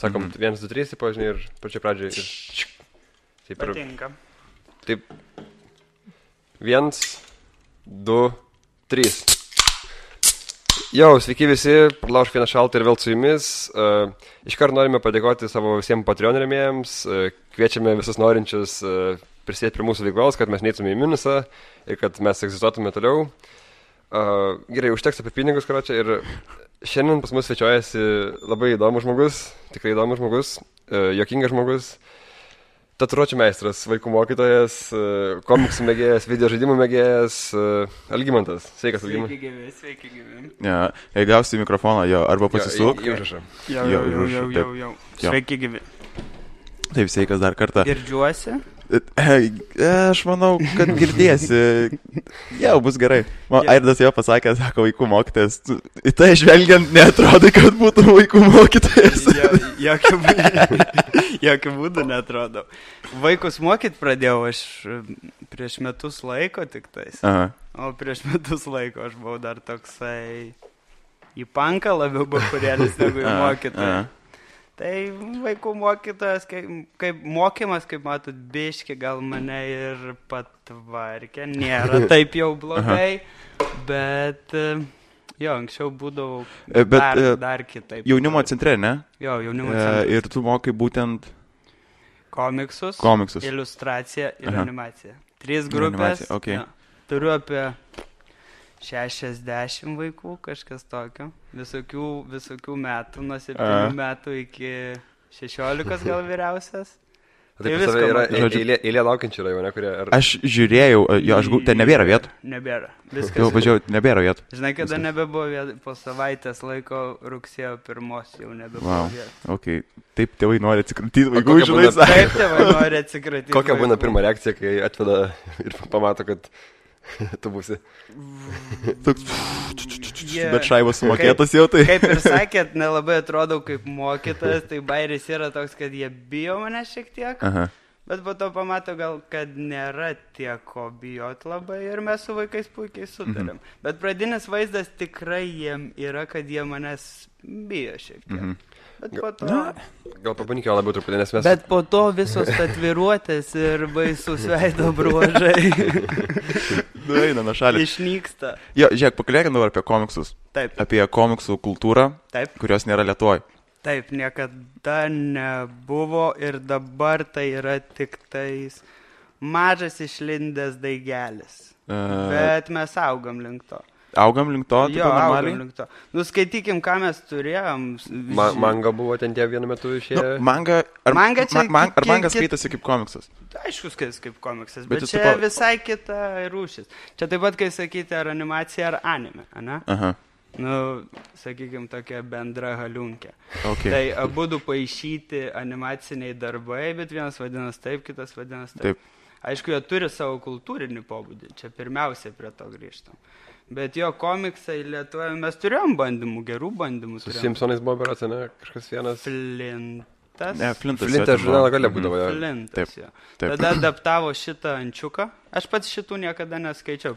Sakom, 1, 2, 3, žinai, ir pačioj pradžioje. Taip, Patinka. Taip. 1, 2, 3. Jau, sveiki visi, Pralaužk vieną šaltą ir vėl su jumis. Iškart norime padėkoti savo visiems Patreon rėmėjams. Kviečiame visus norinčius prisėti prie mūsų veiklos, kad mes neįtume į minusą ir kad mes egzistuotume toliau. Gerai, užteks apie pinigus, karočią. Ir šiandien pas mus svečiuojasi labai įdomus žmogus, tikrai įdomus žmogus, juokingas žmogus, tatuiruočių meistras, vaikų mokytojas, komiksų mėgėjas, video žaidimų mėgėjas, Algimantas. Sveikas, Algimantas. Sveiki gyvi. Ja, jei gausi mikrofoną, jo, arba pasisuk. Jau. Sveiki gyvi. Taip, sveikas dar kartą. Girdžiuosi? Aš manau, kad girdėsi. Jau, bus gerai. Airdas jau pasakė, sako, vaikų mokytojas. Į tai žvelgiant, neatrodo, kad būtų vaikų mokytojas. Jokių būdų neatrodo. Vaikus mokyt pradėjau aš prieš metus laiko tik tais. Aha. O prieš metus laiko aš buvau dar toksai į panką labiau bakurėlis negu į mokytoją. Tai vaikų mokytojas, kaip mokymas, kaip matot, biški gal mane ir patvarkė, nėra taip jau blogai, bet jo, anksčiau būdavau dar kitaip. Jaunimo centre, ne? Jo, jaunimo centre. Ir tu mokai būtent komiksus, iliustraciją ir animaciją. 3 grupės. Okay. Jo. Turiu apie 60 vaikų, kažkas tokio. Visokių metų, nuo 7 metų iki 16 gal vyriausias. Tai pas tave yra eilė laukiančių rajone, kurie... Aš žiūrėjau, ten nebėra vietų. Nebėra. Viskas. Jau važiuoju, nebėra vietų. Žinai, kada nebebuvo vietų, po savaitės laiko rugsėjo 1 jau nebebuvo vietų. Okay. Taip tėvai nori atsikratyti vaikų, žinai. Taip tėvai nori atsikratyti vaikų. Kokia būna pirma reakcija, kai atveda ir pamato, kad tu būsi. Bet šaibas sumokėtas jau tai. Kaip ir sakėt, nelabai atrodau kaip mokytas, tai bairis yra toks, kad jie bijo mane šiek tiek. Aha. Bet po to pamato gal, kad nėra tiek ko bijot labai ir mes su vaikais puikiai sutarėm. Bet pradinis vaizdas tikrai jiem yra, kad jie manęs bijo šiek tiek. Bet po to... Gal pabandykime labiau truputį, nes mes... Bet po to visos tatuiruotės ir baisus veido bruožai eina nuo šalį. Išnyksta. Jo, žiūrėk, pakalbėkime dabar apie komiksus. Taip. Apie komiksų kultūrą, taip, kurios nėra Lietuvoj. Taip, niekada nebuvo ir dabar tai yra tik tais mažas išlindęs daigelis. Bet mes augam link to. Augam link to? Jo, augam link to. Nuskaitykim, ką mes turėjom. Manga buvo ten tie vienu metu išėję. Ar manga skaitasi kaip komiksas? Aišku, skaitasi kaip komiksas, bet čia visai kita rūšis. Čia taip pat, kai sakyti, ar animacija, ar anime, ane? Aha. Sakykim, tokia bendra haliunkė. Okay. Tai abudu paišyti animaciniai darbai, bet vienas vadinas taip, kitas vadinas taip. Aišku, jie turi savo kultūrinį pobūdį, čia pirmiausia prie to grįžtam. Bet jo komiksai Lietuvoje, mes turėjom bandymų, gerų bandymų. Su Simpsonais buvo berods, ne? Kažkas vienas. Flintas. Ne, Flintas žurnalą galė būdavo. Flintas, jo. Tada adaptavo šitą Ančiuką. Aš pats šitų niekada neskaičiau.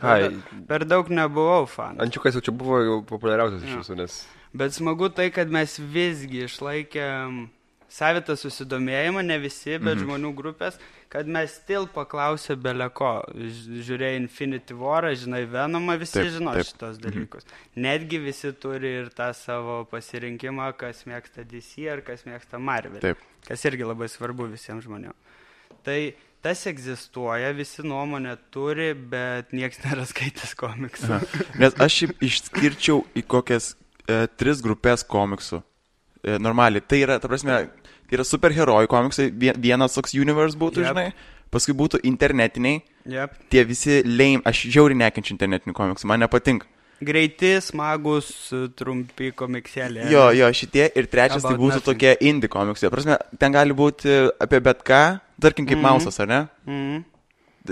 Per daug nebuvau fan. Ančiukas jau čia buvo jau populiariausias iš visų, nes... Bet smagu tai, kad mes visgi išlaikėm savitą susidomėjimą, ne visi, bet žmonių grupės, kad mes still paklausė beleko. Žiūrėjai Infinity War'ą, žinai Venomą, visi žino šitos dalykus. Netgi visi turi ir tą savo pasirinkimą, kas mėgsta DC ar kas mėgsta Marvel. Taip. Kas irgi labai svarbu visiems žmonėms. Tai tas egzistuoja, visi nuomonę turi, bet nieks nėra skaitęs komiksų. Nes aš išskirčiau į kokias 3 grupės komiksų. Normaliai, tai yra, ta prasme, yra superherojų komiksai, vienas toks universe būtų, žinai, paskui būtų internetiniai, tie visi lame, aš žiauriai nekenčiu internetinių komiksų, man nepatinka. Greiti, smagus, trumpi komiksėlė. Jo, šitie ir trečias tai būtų tokie indie komiksai, prasme, ten gali būti apie bet ką, tarkim kaip Mausas, ar ne?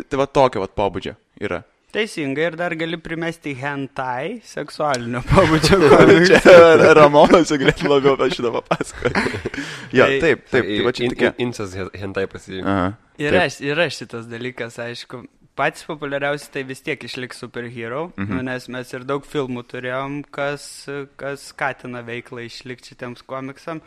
Tai va tokio va pobūdžio yra. Teisingai, ir dar gali primesti hentai, seksualinio pobūdžio komiksą. Čia Ramonas galėtų labiau apie šitą papasakoti. Jo, taip, tai va čia tokia. Incas hentai pasirinko. Yra šitas dalykas, aišku. Patys populiariausi tai vis tiek išliks superhero, nes mes ir daug filmų turėjom, kas skatina veiklą išlikti šitiems komiksam.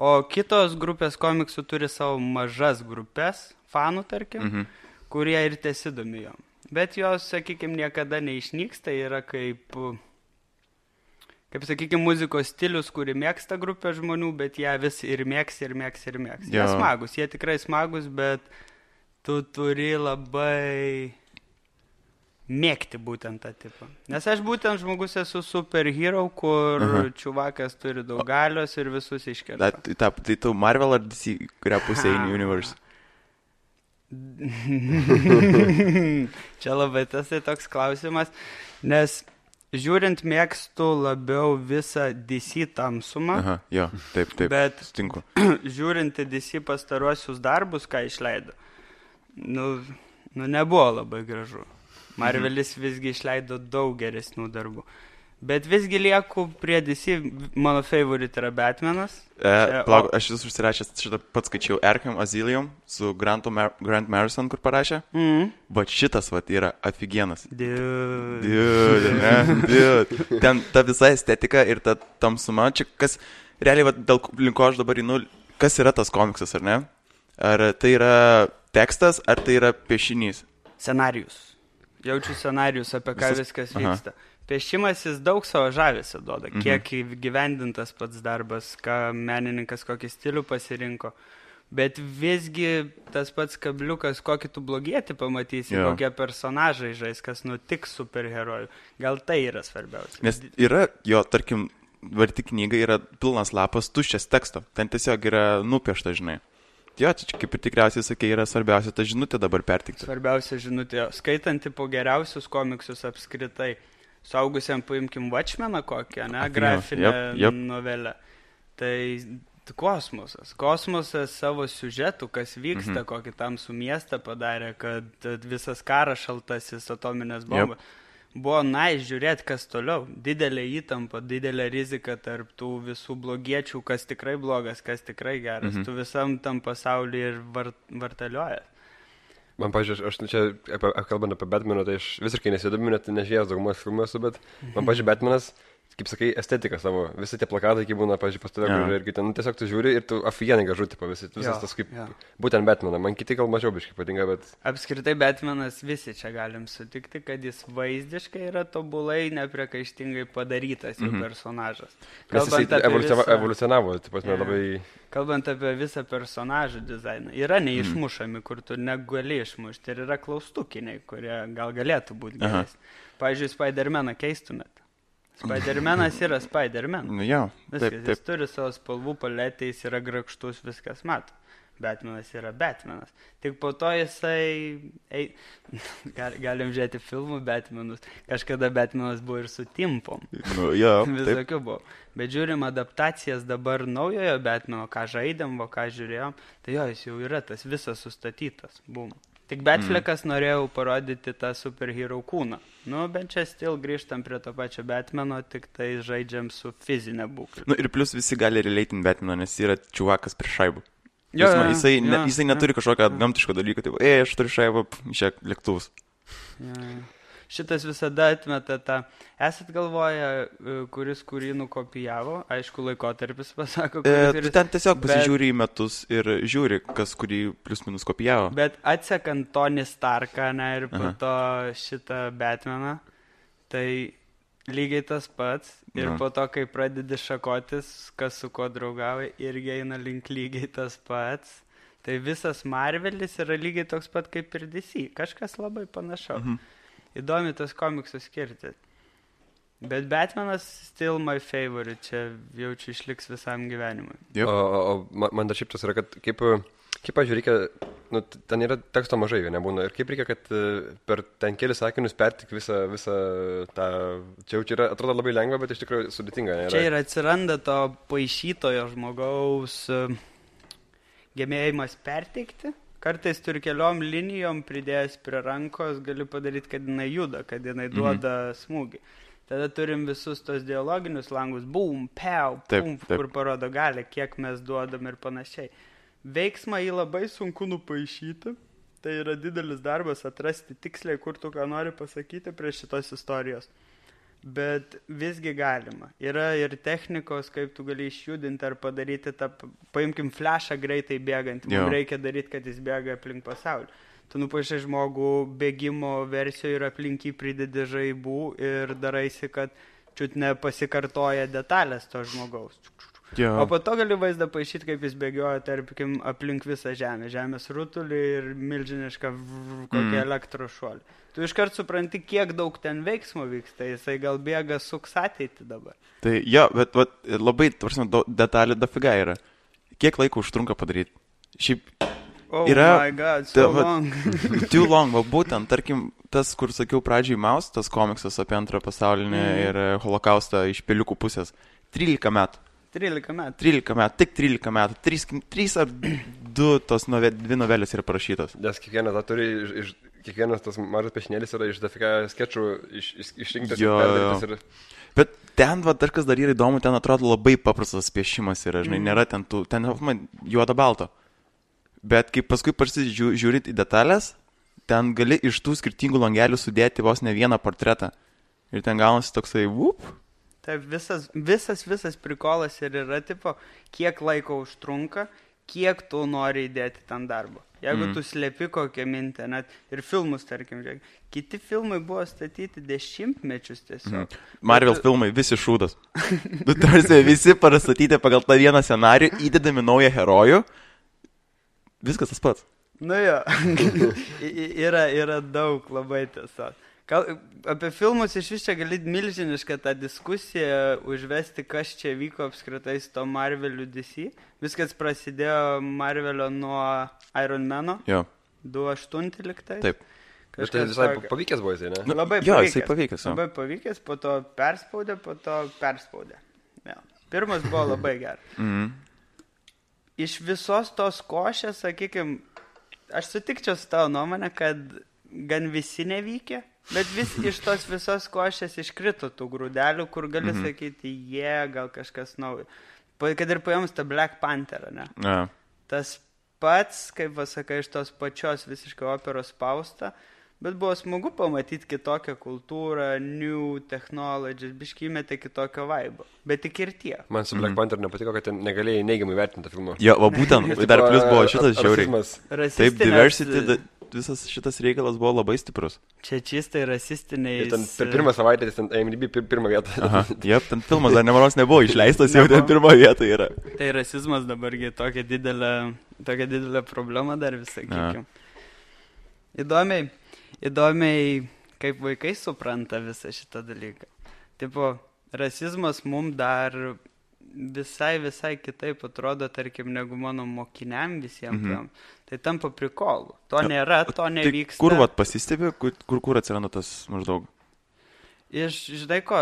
O kitos grupės komiksų turi savo mažas grupės, fanų tarkim, kurie ir tesidomi jom. Bet jos, sakykime, niekada neišnyksta, yra kaip sakykime, muzikos stilius, kuri mėgsta grupė žmonių, bet ją vis ir mėgs. Jie smagus, jie tikrai smagus, bet tu turi labai mėgti būtent tą tipą. Nes aš būtent žmogus esu superhero, kur čiuvakas turi daug galios ir visus iškerta. Tai tu Marvel ar DC, kurią pusę į Universe? Čia labai tas toks klausimas, nes žiūrint mėgstu labiau visą DC tamsumą. Taip, bet sutinku. Žiūrint į DC pastaruosius darbus, ką išleido, nebuvo labai gražu. Marvelis visgi išleido daug geresnių darbų. Bet visgi lieku prie DC, mano favorite yra Batmanas. Plauk, aš vis užsirašęs šitą pats skaičiau Arkham Asylum su Grant Morrison, kur parašė. Bet šitas yra afigienas. Dude. Ten ta visa estetika ir ta tamsuma, čia kas, realiai, dėl linko aš dabar kas yra tas komiksas, ar ne? Ar tai yra tekstas, ar tai yra piešinys? Scenarijus. Jaučiu scenarijus, apie ką viskas vyksta. Piešimas jis daug savo žavesio duoda, kiek gyvendintas pats darbas, ką menininkas kokį stilių pasirinko. Bet visgi tas pats kabliukas, kokį tu blogietį pamatysi, kokie personažai žais, kas nutiks superherojų. Gal tai yra svarbiausia. Nes yra tarkim, varti knyga yra pilnas lapas tuščias teksto. Ten tiesiog yra nupiešta, žinai. Čia kaip ir tikriausiai sakė, yra svarbiausia ta žinutė dabar pertikti. Svarbiausia žinutė. Skaitanti po geriausius komiksus apskritai. Suaugusiam paimkim Watchmeną kokią, ne? Grafinę novelę. Tai kosmosas. Kosmosas savo siužetų, kas vyksta, kokį tamsų miestą padarė, kad visas karas šaltasis, atominės bombos. Buvo žiūrėti, kas toliau. Didelė įtampa, didelė rizika tarp tų visų blogiečių, kas tikrai blogas, kas tikrai geras. Tu visam tam pasaulyje ir vartaliojas. Man, pažiūrėjau, aš čia, kalbant apie Batmaną, tai aš visiškai nesidomiu, net nežiūrėjęs daugumos filmų esu, bet man, pažiūrėjau, Batmanas, kaip sakai, estetika savo. Visi tie plakatai, kai būna, pažiūrėjau, pas tave, ir ten tiesiog tu žiūri ir tu afigenai gražu, tipo, visas tas kaip, būtent Batmaną. Man kiti gal mažiau biškai patinka, bet... Apskritai Batmanas visi čia galim sutikti, kad jis vaizdiškai yra tobulai, nepriekaištingai padarytas jų personažas. Evoliucionavo, tipo, labai... Kalbant apie visą personažų dizainą, yra neišmušami, kur tu negali išmušti, ir yra klaustukiniai, kurie gal galėtų būti geresni. Pavyzdžiui, Spider-Maną keistumėt. Spider-Manas yra Spider-Man. Viskas, jis turi savo spalvų paletę, jis yra grakštus, viskas mato. Batmanas yra Batmanas. Tik po to jisai... Galim žiūrėti filmų Batmanus. Kažkada Batmanas buvo ir su timpom. Visokių buvo. Bet žiūrim adaptacijas dabar naujojo Batmano, ką žaidėm, ką žiūrėjom. Tai jis jau yra tas visas sustatytas. Bum. Tik Batfleckas norėjau parodyti tą superhero kūną. Bent čia still grįžtam prie to pačio Batmano, tik tai žaidžiam su fizinė būklė. Ir plus visi gali relatint Batmano, nes yra čiuvakas prie šaibų. Jisai neturi kažkokio gamtiško dalyko, tai aš turiu šaibą, išėk lėktuvus. Šitas visada atmeta tą. Esat galvoję, kuris kurį nukopijavo, aišku, laikotarpis pasako, kuris... Ten tiesiog pasižiūri į metus ir žiūri, kas kurį plius minus kopijavo. Bet atsekant Tony Starką, ir po to šitą Batmaną, tai lygiai tas pats. Ir po to, kai pradedi šakotis, kas su ko draugauja, irgi eina link lygiai tas pats. Tai visas Marvelis yra lygiai toks pat kaip ir DC. Kažkas labai panašaus. Įdomi tas komiksų skirti. Bet Batmanas still my favorite. Čia jaučiu išliks visam gyvenimui. O man dar šiaip tas yra, kad kaip pažiūrėjau, reikia, ten yra teksto mažai, nebūna. Ir kaip reikia, kad per ten kelis sakinius pertik visą tą... Čia yra, atrodo labai lengva, bet iš tikrųjų sudėtinga. Čia ir atsiranda to paišytojo žmogaus gebėjimas perteikti. Kartais turi keliom linijom pridėjęs prie rankos, gali padaryti, kad jinai juda, kad jinai duoda smūgį. Tada turim visus tos dialoginius langus, boom, pew, pum, kur parodo gali, kiek mes duodam ir panašiai. Veiksmą jį labai sunku nupaišyti, tai yra didelis darbas atrasti tiksliai, kur tu ką nori pasakyti prie šitos istorijos. Bet visgi galima. Yra ir technikos, kaip tu gali išjudinti ar padaryti tą, paimkim flashą greitai bėgant. Mums reikia daryti, kad jis bėga aplink pasaulį. Tu nupaišai žmogų bėgimo versijoje ir aplink jį pridedi žaibų ir daraisi, kad čiut nepasikartoja detalės to žmogaus. O po to gali vaizdą paaišyti, kaip jis bėgioja, tarkim, aplink visą žemę. Žemės rutulį ir milžinišką kokį elektros šuolį. Tu iškart supranti, kiek daug ten veiksmo vyksta. Jisai gal bėga suks ateitį dabar. Tai jo, bet labai, detalė dafiga yra. Kiek laiko užtrunka padaryti? Šiaip yra... Oh my god, so long. Too long, va būtent, tarkim, tas, kur sakiau pradžiai Maus, tas komiksas apie antrą pasaulinį ir holokaustą iš peliukų pusės. 13 metų. 13 metų. 13 metų, tik 13 metų. 3 ar 2 tos 2 novelės yra parašytos. Nes kiekvienas tas mažas piešinėlis yra iš dafika skečų išrinktas ir perdarytas. Ir... Bet ten, dar kas dar yra įdomu, ten atrodo labai paprastas piešimas yra, žinai, nėra ten juoda balto. Bet kai paskui žiūrit į detalės, ten gali iš tų skirtingų langelių sudėti vos ne vieną portretą. Ir ten gaunasi toksai, Taip, visas prikolas ir yra, tipo, kiek laiko užtrunka, kiek tu nori įdėti ten darbo. Jeigu tu slėpi kokią mintę, net ir filmus, tarkim, žiūrėk. Kiti filmai buvo statyti 10 mečius tiesiog. Marvel filmai, visi šūdas. Visi parastatyti pagal tą vieną scenarijų, įdedami naują herojų. Viskas tas pats. Nu jo, yra daug labai tiesiog. Apie filmus iš vis čia gali milžinišką tą diskusiją užvesti, kas čia vyko apskritai su to Marveliu DC. Viskas prasidėjo Marvelio nuo Iron Mano. Jo. 2008 liktais. Taip. Bet tai visai pavykęs buvo jisai, ne? Labai jo, pavykęs. Jisai pavykęs. Labai pavykęs, po to perspaudė. Ja. Pirmas buvo labai geras. Iš visos tos košės, sakykime, aš sutikčiau su tavo nuomonę, kad gan visi nevykė. Bet vis iš tos visos košės iškrito tų grūdelių, kur gali sakyti, gal kažkas naujo. Kad ir paėmus tą Black Pantherą, ne? Ja. Tas pats, kaip pasakai, iš tos pačios visiškai operos spausta, bet buvo smagu pamatyti kitokią kultūrą, new technologies, biškį įmetė kitokio vaibo. Bet tik ir tie. Man su Black Panther nepatiko, kad negalėjai neigiamai vertinti tą filmą. Jo, va būtent, dar plus buvo šitas žiauriai. Taip, diversity, visas šitas reikalas buvo labai stiprus. Čia čistai rasistiniai. Ten per pirmą savaitę jis ten IMDb pirmą vietą. Aha, ten filmas dar nemaros nebuvo išleistas, jau ten pirmą vietą yra. Tai rasizmas dabargi tokia didelė problema dar visai, sakykim. Įdomiai, kaip vaikai supranta visą šitą dalyką. Tipo, rasizmas mums dar visai kitaip atrodo, tarkim, negu mano mokiniam visiems. Tai tampa prikolu. To nėra, to nevyksta. Tai kur pasistebi, kur atsiranda tas maždaug? Žinai ko,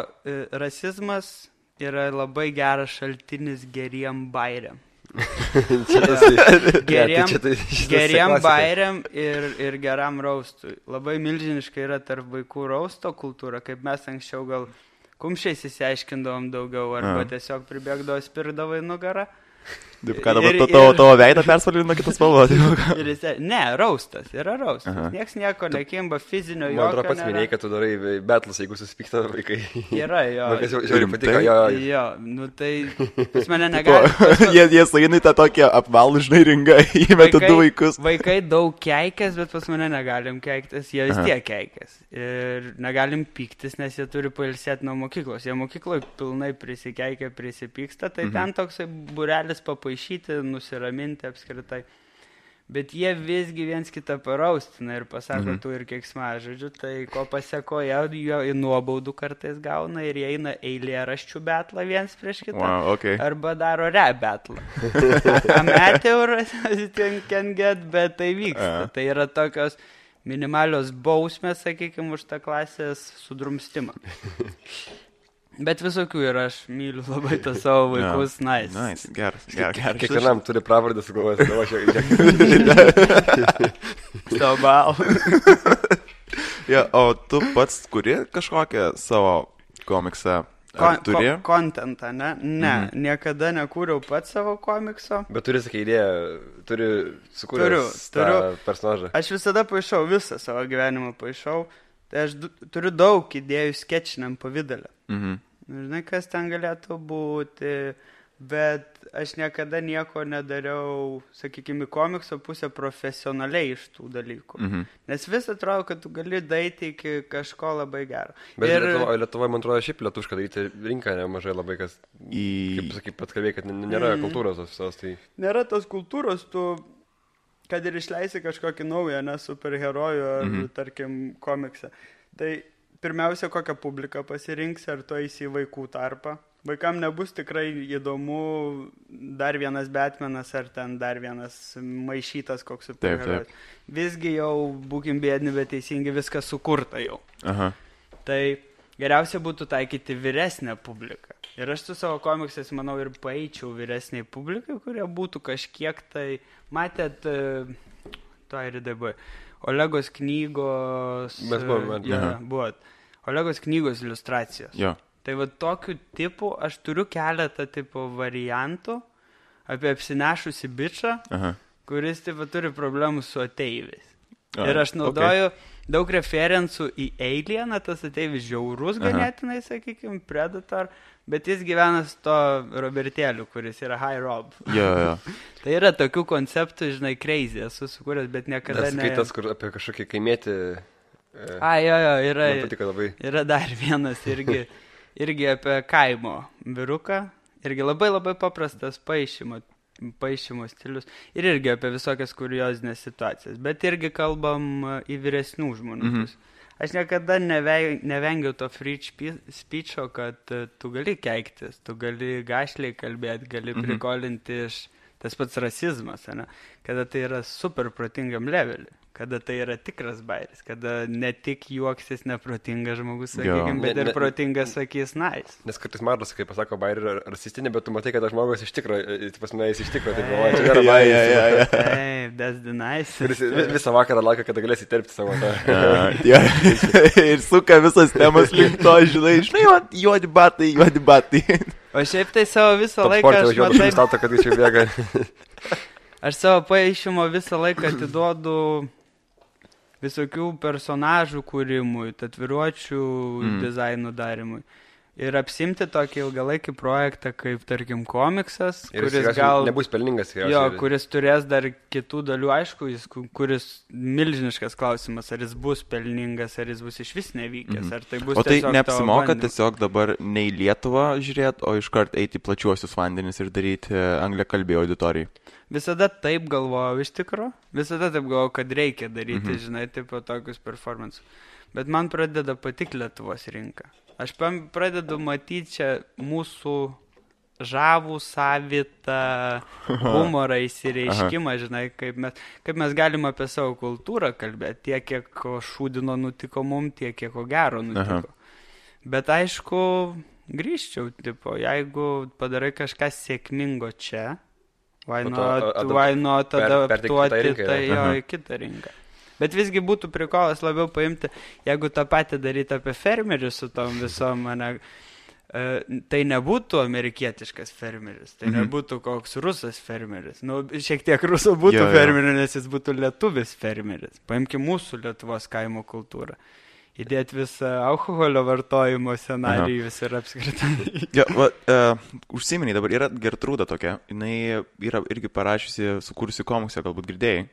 rasizmas yra labai geras šaltinis geriem bairiam. Geriem bairiam ir geram raustui. Labai milžiniškai yra tarp vaikų rausto kultūra, kaip mes anksčiau gal kumščiais įsiaiškindavom daugiau, arba tiesiog pribėgdavo spirdavo į nugarą. Taip, ką dabar tavo veidą persvalino kitas spalvos? Ne, raustas, yra raustas. Niekas nieko nekimba, fizinio jokio. Man atrodo pats minėjai, kad tu darai betlus, jeigu susipykta vaikai. Yra, jo. Man kas žiauriai patiko, jo. Nu tai, pas mane negali. Jie sainai tą tokią apvalų, žinai, ringą, įmeta 2 vaikus. Vaikai daug keikės, bet pas mane negalim keiktis, jie vis tiek keikės. Ir negalim pyktis, nes jie turi pailsėti nuo mokyklos. Jie mokykloje pilnai prisikeikia, prisipyksta, tai ten toksai burelis papaišyti, nusiraminti apskritai. Bet jie visgi viens kitą paraustina ir pasako tu ir keiksmažodžių, tai ko pasekoja, jo į nuobaudų kartais gauna ir jie eina eilėraščių betlą viens prieš kitą. Wow, okay. Arba daro rap betlą. Ameteuras can get, bet tai vyksta. Tai yra tokios minimalios bausmės, sakykime, už tą klasės sudrumstimą. Bet visokių ir aš myliu labai tą savo vaikus. Nice, geras. Kiekvienam turi pravardę sugalvoti. Stabal. O tu pats kuri kažkokią savo komiksą? Kontentą, ne? Ne, niekada nekūriau pats savo komikso. Bet turi, sakai, idėją, sukūręs tą personažą. Aš visada paišau, visą savo gyvenimą paišau. Tai aš turiu daug idėjų skečiniam pavydalę. Mhm. Žinai, kas ten galėtų būti, bet aš niekada nieko nedariau, sakykime, komikso pusę profesionaliai iš tų dalykų. Mhm. Nes vis atrodo, kad tu gali daiti iki kažko labai gero. Bet Lietuvoje, man atrodo, šiaip lietuviška daryti rinką nemažai labai, kas, kaip sakai, pat kalbėjai, kad nėra kultūros visos. Tai... Nėra tos kultūros, tu, kad ir išleisi kažkokį naują, ne, superherojų ar, tarkim, komiksą. Tai pirmiausia, kokią publiką pasirinksi, ar tu eisi į vaikų tarpą. Vaikam nebus tikrai įdomu dar vienas Batmanas ar ten dar vienas maišytas koks superherojus. Visgi jau būkim bėdni, bet teisingai viskas sukurta jau. Aha. Tai geriausia būtų taikyti vyresnę publiką. Ir aš su savo komiksais, manau, ir paeičiau vyresniai publikai, kurie būtų kažkiek tai... Matėt, to ir dabar... Olegos knygos... Mes buvome. Buvot. Olegos knygos iliustracijos. Jo. Tai va tokiu tipu aš turiu keletą tipo variantų apie apsinešusi bičą, kuris tipo turi problemų su ateiviais. Ir aš naudoju daug referencų į Alieną, tas ateivis žiaurus ganėtinai, sakykime, Predator, bet jis gyvena su to Robertėliu, kuris yra High Rob. Jo. Tai yra tokių konceptų, žinai, crazy, esu sukūręs, bet niekada ne... Skaitas, kur apie kažkokį kaimėtį... yra dar vienas irgi apie kaimo vyruką, irgi labai labai paprastas paišymo stilius ir irgi apie visokias kuriozinės situacijas, bet irgi kalbam į vyresnių žmonių. Aš niekada nevengiau to free speecho, kad tu gali keiktis, tu gali gašliai kalbėti, gali prikolinti iš tas pats rasizmas, ne? Kada tai yra super protingam levelį, kada tai yra tikras bairis, kada ne tik juoksis neprotingas žmogus, sakykime, bet ir protingas sakys nice. Nes kartais matos, kai pasako bairį rasistinį, bet tu matai, kad žmogus iš tikro, jis tai galvoja, čia nėra bairis. Taip, that's the nice. Kuris visą vakarą laukia, kada galės įterpti savo tą. Ir suka visas temas link to, žinai, juodi batai. O šiaip tai savo visą laiką aš savo paaišymo visą laiką atiduodu visokių personažų kūrimui, tatuiruočių dizainų darimui. Ir apsimti tokį ilgalaikį projektą, kaip, tarkim, komiksas, ir kuris gal... nebus pelningas. Jo, kuris turės dar kitų dalių, aišku, kuris milžiniškas klausimas, ar jis bus pelningas, ar jis bus iš vis nevykęs, ar tai bus tiesiog... O tai neapsimoka tiesiog dabar ne į Lietuvą žiūrėti, o iškart eiti plačiuosius vandenis ir daryti angliakalbį auditorijai? Visada taip galvojau iš tikro, kad reikia daryti, žinai, tipo tokius performances. Bet man pradeda patikti Lietuvos rinka. Aš pradedu matyti čia mūsų žavų, savitą humorą įsireiškimą, žinai, kaip mes galim apie savo kultūrą kalbėti, tiek, kiek šūdino nutiko mum, tiek, kiek gero nutiko. Bet aišku, grįžčiau, tipo, jeigu padarai kažką sėkmingo čia, why not adaptuoti tai į kitą rinką. Bet visgi būtų prikolas labiau paimti, jeigu tą patį daryti apie fermerius su tom visom, tai nebūtų amerikietiškas fermeris, tai nebūtų koks rusas fermeris. Nu, šiek tiek rusų būtų fermeris, nes jis būtų lietuvis fermeris. Paimkim mūsų Lietuvos kaimo kultūrą. Įdėti visą alkoholio vartojimo scenarijus ir apskritai. Užsiminiai, dabar yra Gertrūda tokia, jinai yra irgi parašiusi, sukūrusi komiksą, galbūt girdėjai,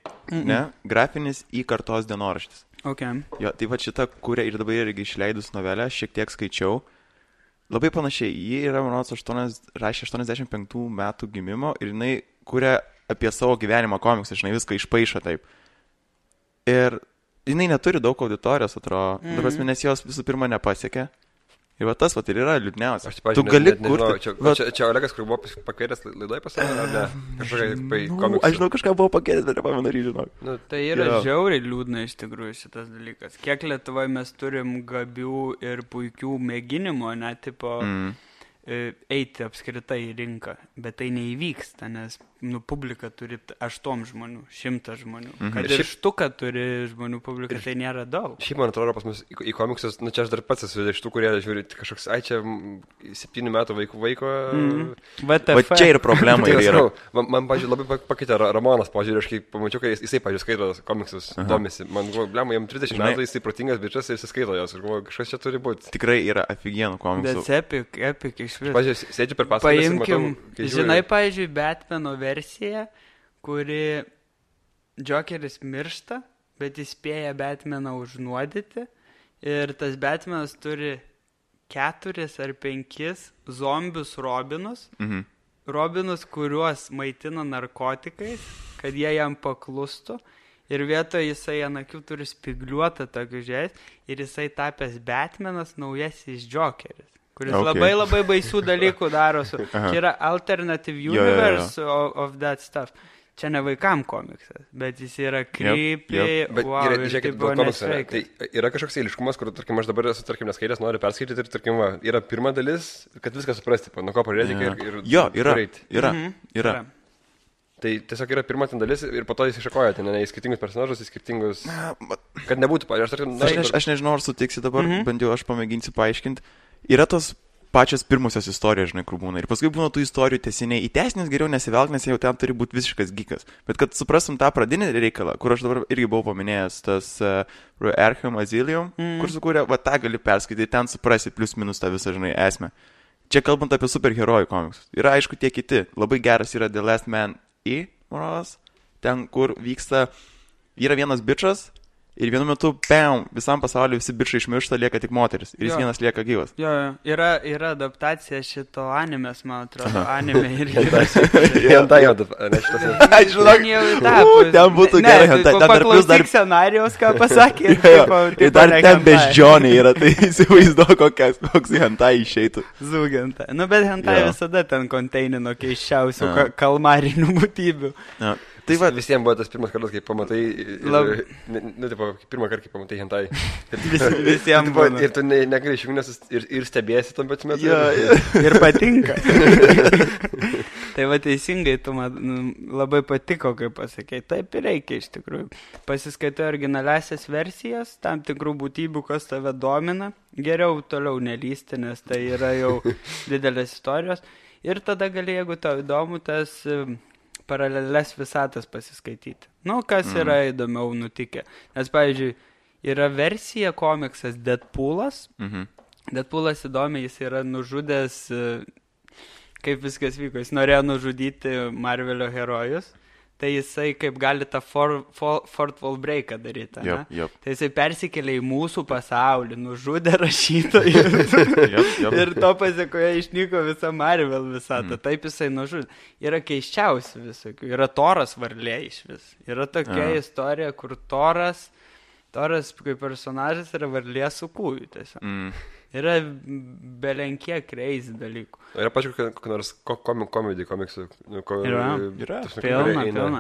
ne? Grafinis į kartos dienoraštis. Okay. Jo, tai va šita kūrė ir dabar irgi išleidus novelę, šiek tiek skaičiau. Labai panašiai, ji yra, manau, rašė 85 metų gimimo ir jinai kūrė apie savo gyvenimą komiksą, žinai, viską išpaišo taip. Ir jinai neturi daug auditorijos, atrodo, nes jos visų pirma nepasiekė. Ir va tas ir yra liūdniausia. Tu gali kurti... Čia Olegas, kur buvo pakvietęs laidoje pasakyti, ar ne? Kažkokia komiksų. Aš žinau, kažką buvo pakvietęs, bet nepamenu, žinau. Tai yra žiauriai liūdna iš tikrųjų šitas dalykas. Kiek Lietuvoje mes turim gabių ir puikių mėginimų, tipo... eiti apskritai į rinką, bet tai neįvyksta, nes publika turi 8 žmonių, 100 žmonių. Kad ir štuka turi žmonių publika, tai nėra daug. Šiaip, man atrodo, pas mus į komiksus, čia aš dar pats esu iš tų, kurie žiūri kažkoks, čia 7 metų vaiko. Va čia ir problema yra. Man, pažiūrėjau, labai pakeitė Ramonas, pažiūrėjau, aš kai pamačiau, kai jisai, pažiūrėjau, skaito komiksus, domisi. Man buvo, blema, jam 30 metų, jisai protingas bičias ir jisai skaito jos. Aš galvoju, kažkas čia turi būti. Tikrai yra aфиgenų komiksų. That's epic iš viso. Pažiūrėjau, sėdžiu per pasakas ir matau. Žinai, pavyzdžiui, Batmano versija, kuri Jokeris miršta, bet jis spėja Batmaną užnuodyti ir tas Batmanas turi 4 ar 5 zombius Robinus. Robinus, kuriuos maitina narkotikais, kad jie jam paklustų. Ir vietoje jisai ant akių turi spigliuotą tokį žiais ir jisai tapęs Batmanas naujasis Jokeris, kuris labai baisių dalykų daro. Čia yra alternative universe of that stuff. Čia ne vaikam komiksas, bet jis yra creepy. Bet žiūrėkit, dėl komikso. Tai yra kažkoks eiliškumas, kur, tarkim, aš dabar esu, tarkim, neskaitęs, noriu perskaityti ir, tarkim, yra pirma dalis, kad viską suprasti, nuo ko pradėti ir yra. Tai tiesiog yra pirma ten dalis ir po to jis iššakoja ten, į skirtingus personažus, į skirtingus... Kad nebūtų, aš nežinau, ar sutiksi dabar, bent jau aš pamėginsiu paaiškinti. Yra tos pačios pirmusios istorijos, žinai, kur būna. Ir paskui būna tų istorijų tęsiniai. Į tęsinius geriau nesivelk, nes jau ten turi būti visiškas gikas. Bet kad suprastum tą pradinį reikalą, kur aš dabar irgi buvau paminėjęs, tas Arkham Asylum, kur sukūrė, va tą gali perskaityti, ten suprasi plius minus tą visą, žinai, esmę. Čia kalbant apie superherojų komiksus. Yra, aišku, tie kiti. Labai geras yra The Last Man ten, kur vyksta, yra vienas bičas ir vienu metu, visam pasauliu visi bičai išmiršta, lieka tik moteris ir jis vienas lieka gyvas. Yra adaptacija šito animės, man atrodo, anime irgi. Hentai jau, aš žinok, ten būtų gerai hentai. Paklausyk scenarijos, ką pasakė. Ir dar ten beždžioniai yra, tai įsivaizduoju, koks hentai išeitų. Zūgentai. Nu, bet hentai visada ten konteinino keiščiausių kalmarinių būtybių. Tai va, visiems buvo tas pirmas kartas, kai pamatai, pirmą kartą, kai pamatai hentai. Visiems buvo. Ir tu negali išjungti, nes ir stebėsi tam pat metu. Ir patinka. Tai va teisingai, tu man labai patiko, kaip pasakei. Taip ir reikia iš tikrųjų. Pasiskaitai originaliasias versijas, tam tikrų būtybių, kas tave domina. Geriau toliau nelysti, nes tai yra jau didelės istorijos. Ir tada gali, jeigu tau įdomu, tas... paralelės visatas pasiskaityti. Nu, kas yra įdomiau nutikę. Nes, pavyzdžiui, yra versija komiksas Deadpoolas. Deadpoolas įdomi, jis yra nužudęs, kaip viskas vyko. Jis norėjo nužudyti Marvelio herojus. Tai jisai kaip gali tą fourth wall breaką daryti. Tai jisai persikėlė į mūsų pasaulį, nužudė rašytojus. Ir to pasiekoje išnyko visa Marvel visata. Taip jisai nužudė. Yra keiščiausi visokių. Yra Toras varlė iš vis. Yra tokia istorija, kur Toras kaip personažas yra varlė su kūju tiesiog. Yra belenkie crazy dalykų. Yra pačiu, kokį nors komedį komiksų. Yra. Pilna.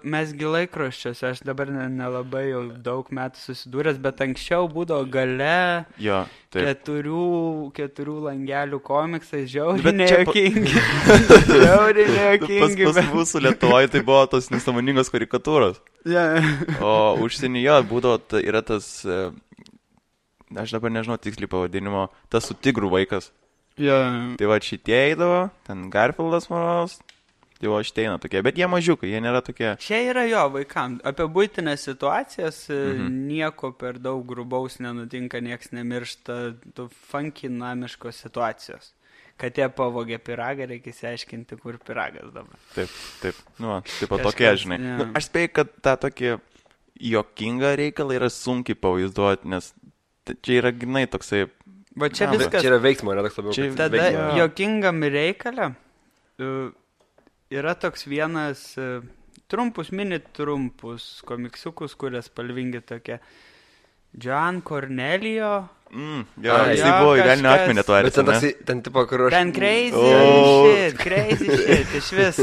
Mes gi laikraščiuose, aš dabar nelabai jau daug metų susidūręs, bet anksčiau būdavo gale 4 langelių komiksai, žiauriai nejuokingi. Pas mūsų Lietuvoje tai buvo tos nesąmoningos karikatūros. O užsienyje būdavo, yra tas... Aš dabar nežinau tiksliai pavadinimo, tas su tigrų vaikas. Tai va šitie eidavo, ten Garfieldas manos, tai va šitie eina tokie, bet jie mažiukai, jie nėra tokie. Čia yra vaikam, apie buitinės situacijas nieko per daug grubaus nenutinka, nieks nemiršta, tu funky namiškos situacijos. Kad jie pavogė piragą, reikia įsiaiškinti, kur piragas dabar. Taip, nu, taip tokie, žinai. Nu, aš spėjau, kad tą tokį juokingą reikalą yra sunkiai pavaizduoti, nes čia yra grinai toksai... Va čia viskas... Čia yra veiksmo, yra toks labiau. Tada juokingam reikalą yra toks vienas mini trumpus komiksiukus, kurias spalvingi tokie. John Cornelio. Jisai buvo į velnio akmenį to arės, ne? Ten tipo, kur aš... Ten crazy shit, iš vis.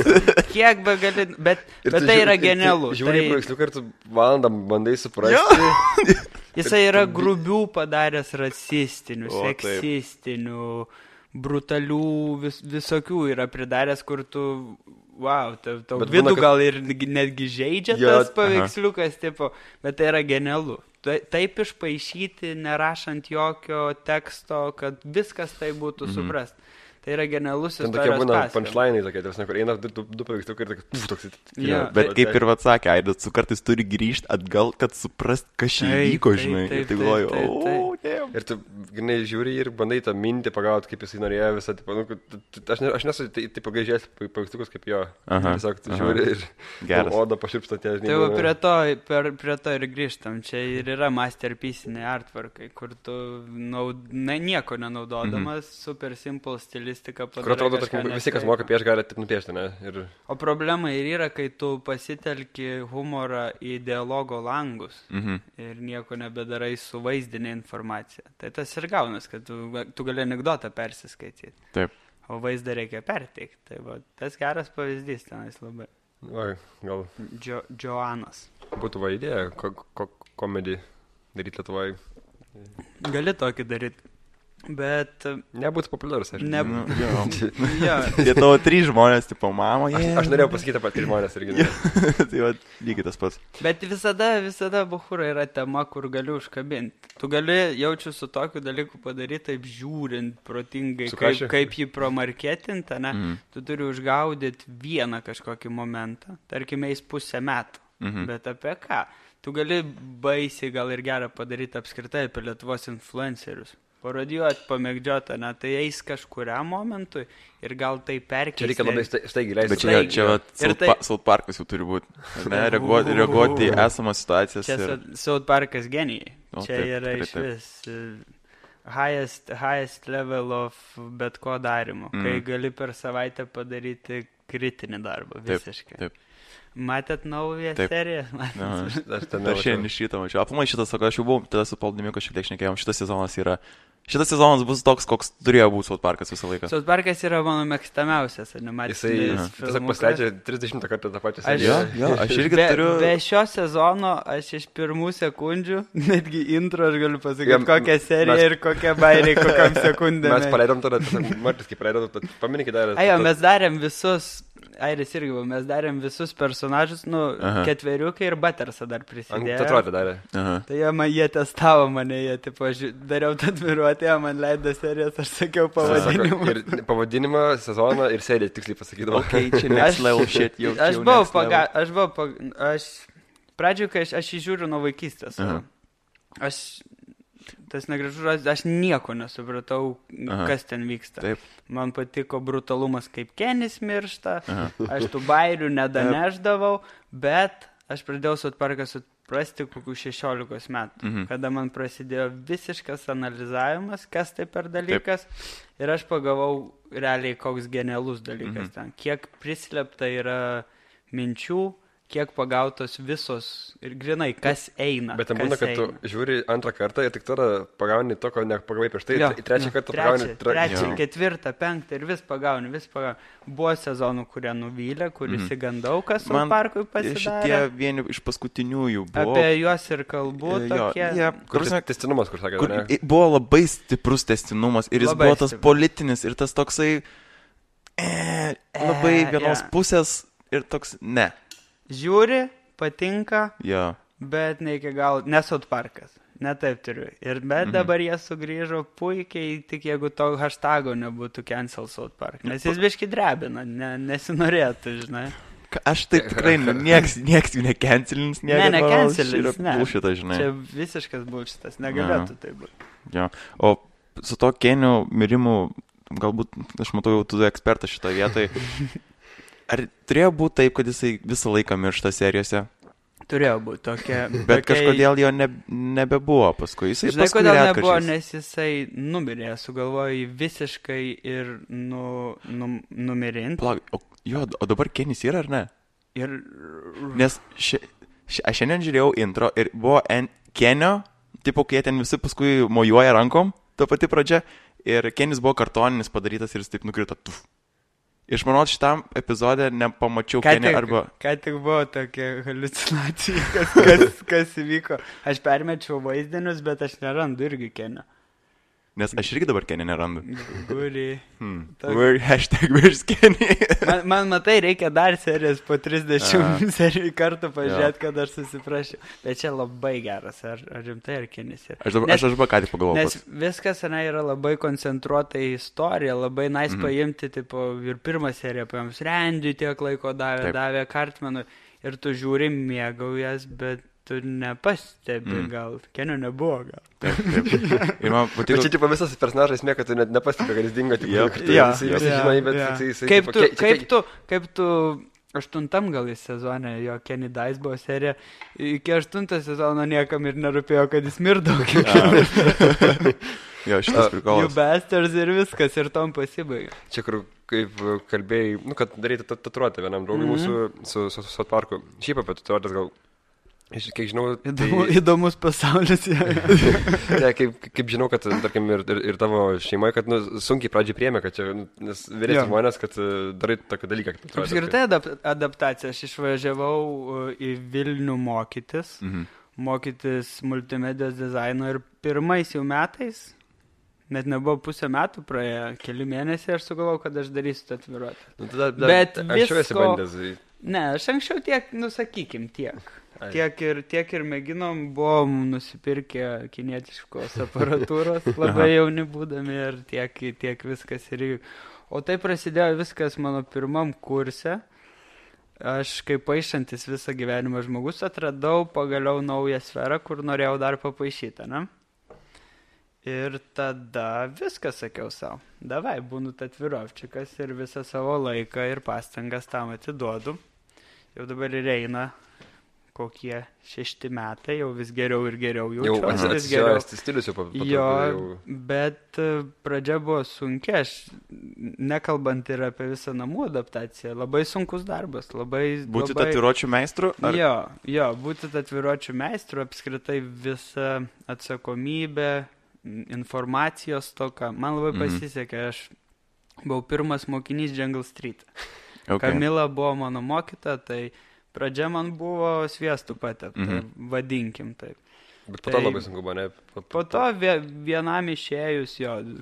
Kiek be gali... Bet tai yra genialu. Žiūrėjau paveiksliuką ir tu valandą bandai suprasti. Jisai yra grubių padaręs rasistinių, seksistinių, brutalių, visokių yra pridaręs, kur tu wow, tau Bet vidų būna, kad- gal ir netgi žaidžia Jo, tas paveiksliukas, tipo, bet tai yra genialu. Taip išpaišyti, nerašant jokio teksto, kad viskas tai būtų suprast. Tai yra genialus Ten tokie istorijos būna pasakojimas. punchline'ai tokie, tarsi, kur eina du paveiksliukai ir toks... Jo, Bet kaip ir atsakė, Aidas, tu kartais turi grįžti atgal, kad suprast, kas čia Taip, įvyko, taip, žinai. taip, Ir tai taip, galvoju, taip, taip. o, ne. Ir tu, žinai, žiūri ir bandai tą mintį pagauti, kaip jisai norėjo visą, tipo, nu, aš nesu taip pagaižęs paveiksliukus kaip jo. Aha, Tiesiog tu aha. žiūri ir Geras. oda paširpsta tie, žinai. Tai jau būna- prie to ir grįžtam. Čia ir yra masterpieciniai artworkai, kur tu nieko nenaudodamas, super simple stilistika Kur padarai. atrodo, tarkim, visi, kas moka piešti, gali taip nupiešti, ne? Ir O problema ir yra, kai tu pasitelki humorą į dialogo langus ir nieko nebedarai su vaizdinė informacija. Tai tas ir gaunas, kad tu gali anekdotą persiskaityti. Taip. O vaizdą reikia perteikti. Tai va, tas geras pavyzdys tenais labai. va, gal Joanas. būtų va idėja, komedį daryti Lietuvoje. Gali tokį daryti. Bet Nebūtų populiarus, aš. ne... Nu, jo. jo, Jie tavo 3 žmonės, tipo, mama, jie. Aš norėjau pasakyti apie 3 žmonės irgi. Ne. Tai va, lygiai tas pats. bet visada buchūra yra tema, kur gali užkabinti. Tu gali jaučiu su tokiu dalyku padaryti taip žiūrint protingai, Su kašiu? kaip jį promarketinti, ne? Tu turi užgaudyti vieną kažkokį momentą. Tarkime, eis 1/2 metų. Bet apie ką? Tu gali baisiai gal ir gerą padaryti apskritai apie Lietuvos influencerius. Parodijuoti, pamėgdžioti, ne? Tai eis kažkuriam momentui ir gal tai perkeisti. Čia reikia labai staigiai leisti. Bet čia va, Ir tai- South Parkas jau turi būti. Ne, reaguoti į esamas situacijas. Čia Ir... South Parkas genijai. O, Čia taip, yra tikrai iš taip. vis highest level of bet ko darimo. Kai gali per savaitę padaryti kritinį darbą visiškai. Taip. Matėt naują Taip. seriją? Aha. Aš ten Aš šiandien iš ryto mačiau. Aplamai šitas, sako, aš jau buvau, tada su Paldimiu šiek tiek šnekėjom, šitas sezonas bus toks, koks turėjo būti South Parkas visą laiką. South Parkas yra mano mėgstamiausias Jisai animacinis tiesiog pasileidžia 30 kartą tą pačią Aš- seriją. Jo, aš irgi be, turiu... be šio sezono aš iš pirmų sekundžių, netgi intro aš galiu pasakyti, Jam- kokią seriją mes- ir kokie bairiai, kokiam sekundėm. Mes paleidom tada, Martis, kaip paleidom, paminkit dar. Ajo, mes darėm visus, Airis irgi buvo, mes darėm visus personažus, Aha. ketveriukai ir Buttersą dar prisidėjo. Atrodė darė. Aha. Tai jie testavo mane, jie, tipo, dariau tatuiruotę, jie man leido serijas, aš sakiau pavadinimą. Ir pavadinimą, sezoną ir seriją tiksliai pasakydavo. Okay, čia next level shit jau. Aš pradžioje, kai aš jį žiūriu nuo vaikystės. Aha. Tas negražus žodis, aš nieko nesupratau, Aha. kas ten vyksta. Taip. Man patiko brutalumas, kaip Kenis miršta, aš tų bairių nedaneždavau, bet aš pradėjau South Parką suprasti kokių 16 metų, kada man prasidėjo visiškas analizavimas, kas tai per dalykas, ir aš pagavau realiai koks genialus dalykas ten, kiek prislėpta yra minčių, kiek pagautos visos ir grinai, kas eina. Bet ten būna, kad tu žiūri antrą kartą ir tik tada pagauni to, ko nepagavai prieš tai. Į trečią kartą pagauni. Trečią, ketvirtą, penktą ir vis pagauni. Buvo sezonų, kurie nuvylė, kur įsigandau, kas South Parkui pasidarė. Šitie vieni iš paskutiniųjų buvo. Apie juos ir kalbu tokie. Kur tęstinumas, kur sakė, Kur ne? buvo labai stiprus tęstinumas ir jis Labai buvo tas stiprus. politinis ir tas toksai labai vienos pusės ir toks ne. Žiūri, patinka, Jo. bet ne iki galo, ne South Parkas. Ne taip turiu. Bet dabar jie sugrįžo puikiai, tik jeigu to hashtago nebūtų cancel South Park. Nes jis biški drebina, nesinorėtų, žinai. Aš taip tikrai, nieks jų necancelins, necancelins, ne. Bullshitą, žinai. Čia visiškas bullshitas, negalėtų tai būti. Jo. O su to Kenio mirimu, galbūt, aš matau jau tu ekspertas šitoje vietoje, ar turėjo būti taip, kad jisai visą laiką miršta serijose? Turėjo būti tokia. Bet kažkodėl jo nebebuvo paskui. Jisai Žinai, paskui kodėl nebuvo, retkarčiais. nes jisai numirė, sugalvojo jį visiškai ir numirinti. O dabar Kenis yra, ar ne? Ir Nes aš šiandien žiūrėjau intro ir buvo Kenio, tipo, kai jie ten visi paskui mojuoja rankom, ta pati pradžia, ir Kenis buvo kartoninis padarytas ir jis taip nukrito. Tuf. Iš manau, šitam epizode nepamačiau Kenio arba... Ką tik buvo tokia haliucinacija, kas įvyko. Aš permečiau vaizdinius, bet aš nerandu irgi Kenio. Nes aš irgi dabar Kenny nerandu. Guri. Where's Kenny? Man matai, reikia dar serijas po 30 serijų kartų pažiūrėti, kad aš susiprašiau. Bet čia labai geras, ar rimtai, ar Kennis yra. Aš dabar ką tik pagalvojau. Nes viskas yra labai koncentruota į istoriją, labai paimti, tipo, ir pirmą seriją paėmus Randy tiek laiko davė Cartmanui ir tu žiūri, mėgaujas, bet tu nepastebi, gal Kenio nebuvo, gal. Taip. Ir man patiko... Bet čia, tipo, visas personažas esmė, kad tu net nepastebi, kad jis dingo, Kaip tu 8 gal į sezonę, jo Kenny Dice buvo serija, iki 8 sezono niekam ir nerūpėjo, kad jis mirdavo. Jo, šitas prikolas. You bastards ir viskas, ir tom pasibaigė. Čia, kur, kaip kalbėjai, kad daryti tatuiruotę vienam draugui mūsų su South Parku. Šiaip apie tatuiruotės gal... Kiek žinau, Įdomus pasaulis. Ne, kaip žinau, kad, tarkim, ir tavo šeimoje, kad sunkiai pradžiai priėmė, kad čia, nes vyresni žmonės, kad darai tokį dalyką. Apskritai adaptacija. Aš išvažiavau į Vilnių mokytis multimedijos dizaino ir pirmais jau metais, net nebuvo pusę metų praėjo, keli mėnesiai, aš sugalvojau, kad aš darysiu tatuiruotę. Bet anksčiau esi bandęs. Ne, aš anksčiau tiek, sakykim, tiek. Tiek ir mėginom, buvom nusipirkę kinietiškos aparatūros, labai jauni būdami ir tiek viskas ir... O tai prasidėjo viskas mano pirmam kurse. Aš kaip paišantis visą gyvenimą žmogus atradau pagaliau naują sferą, kur norėjau dar papaišyti, ne? Ir tada viską sakiau savo. Davai, būnu tatuirovčikas ir visą savo laiką ir pastangas tam atiduodu. Jau dabar ir eina kokie 6 metai, jau vis geriau ir geriau jaučiuosi. Jau atsijojęs stilius jau patruputį. Jo, bet pradžia buvo sunkia, aš nekalbant ir apie visą namų adaptaciją, labai sunkus darbas, Būti tatuiruočių meistru? Jo, būti tatuiruočių meistru, apskritai visa atsakomybė, informacijos toka. Man labai pasisekė, aš buvau pirmas mokinys Jungle Street. Kamila buvo mano mokyta, tai pradžia man buvo sviestų patepta, vadinkim taip. Bet po to labai sunku buvo, ne? Po to vienam išėjus,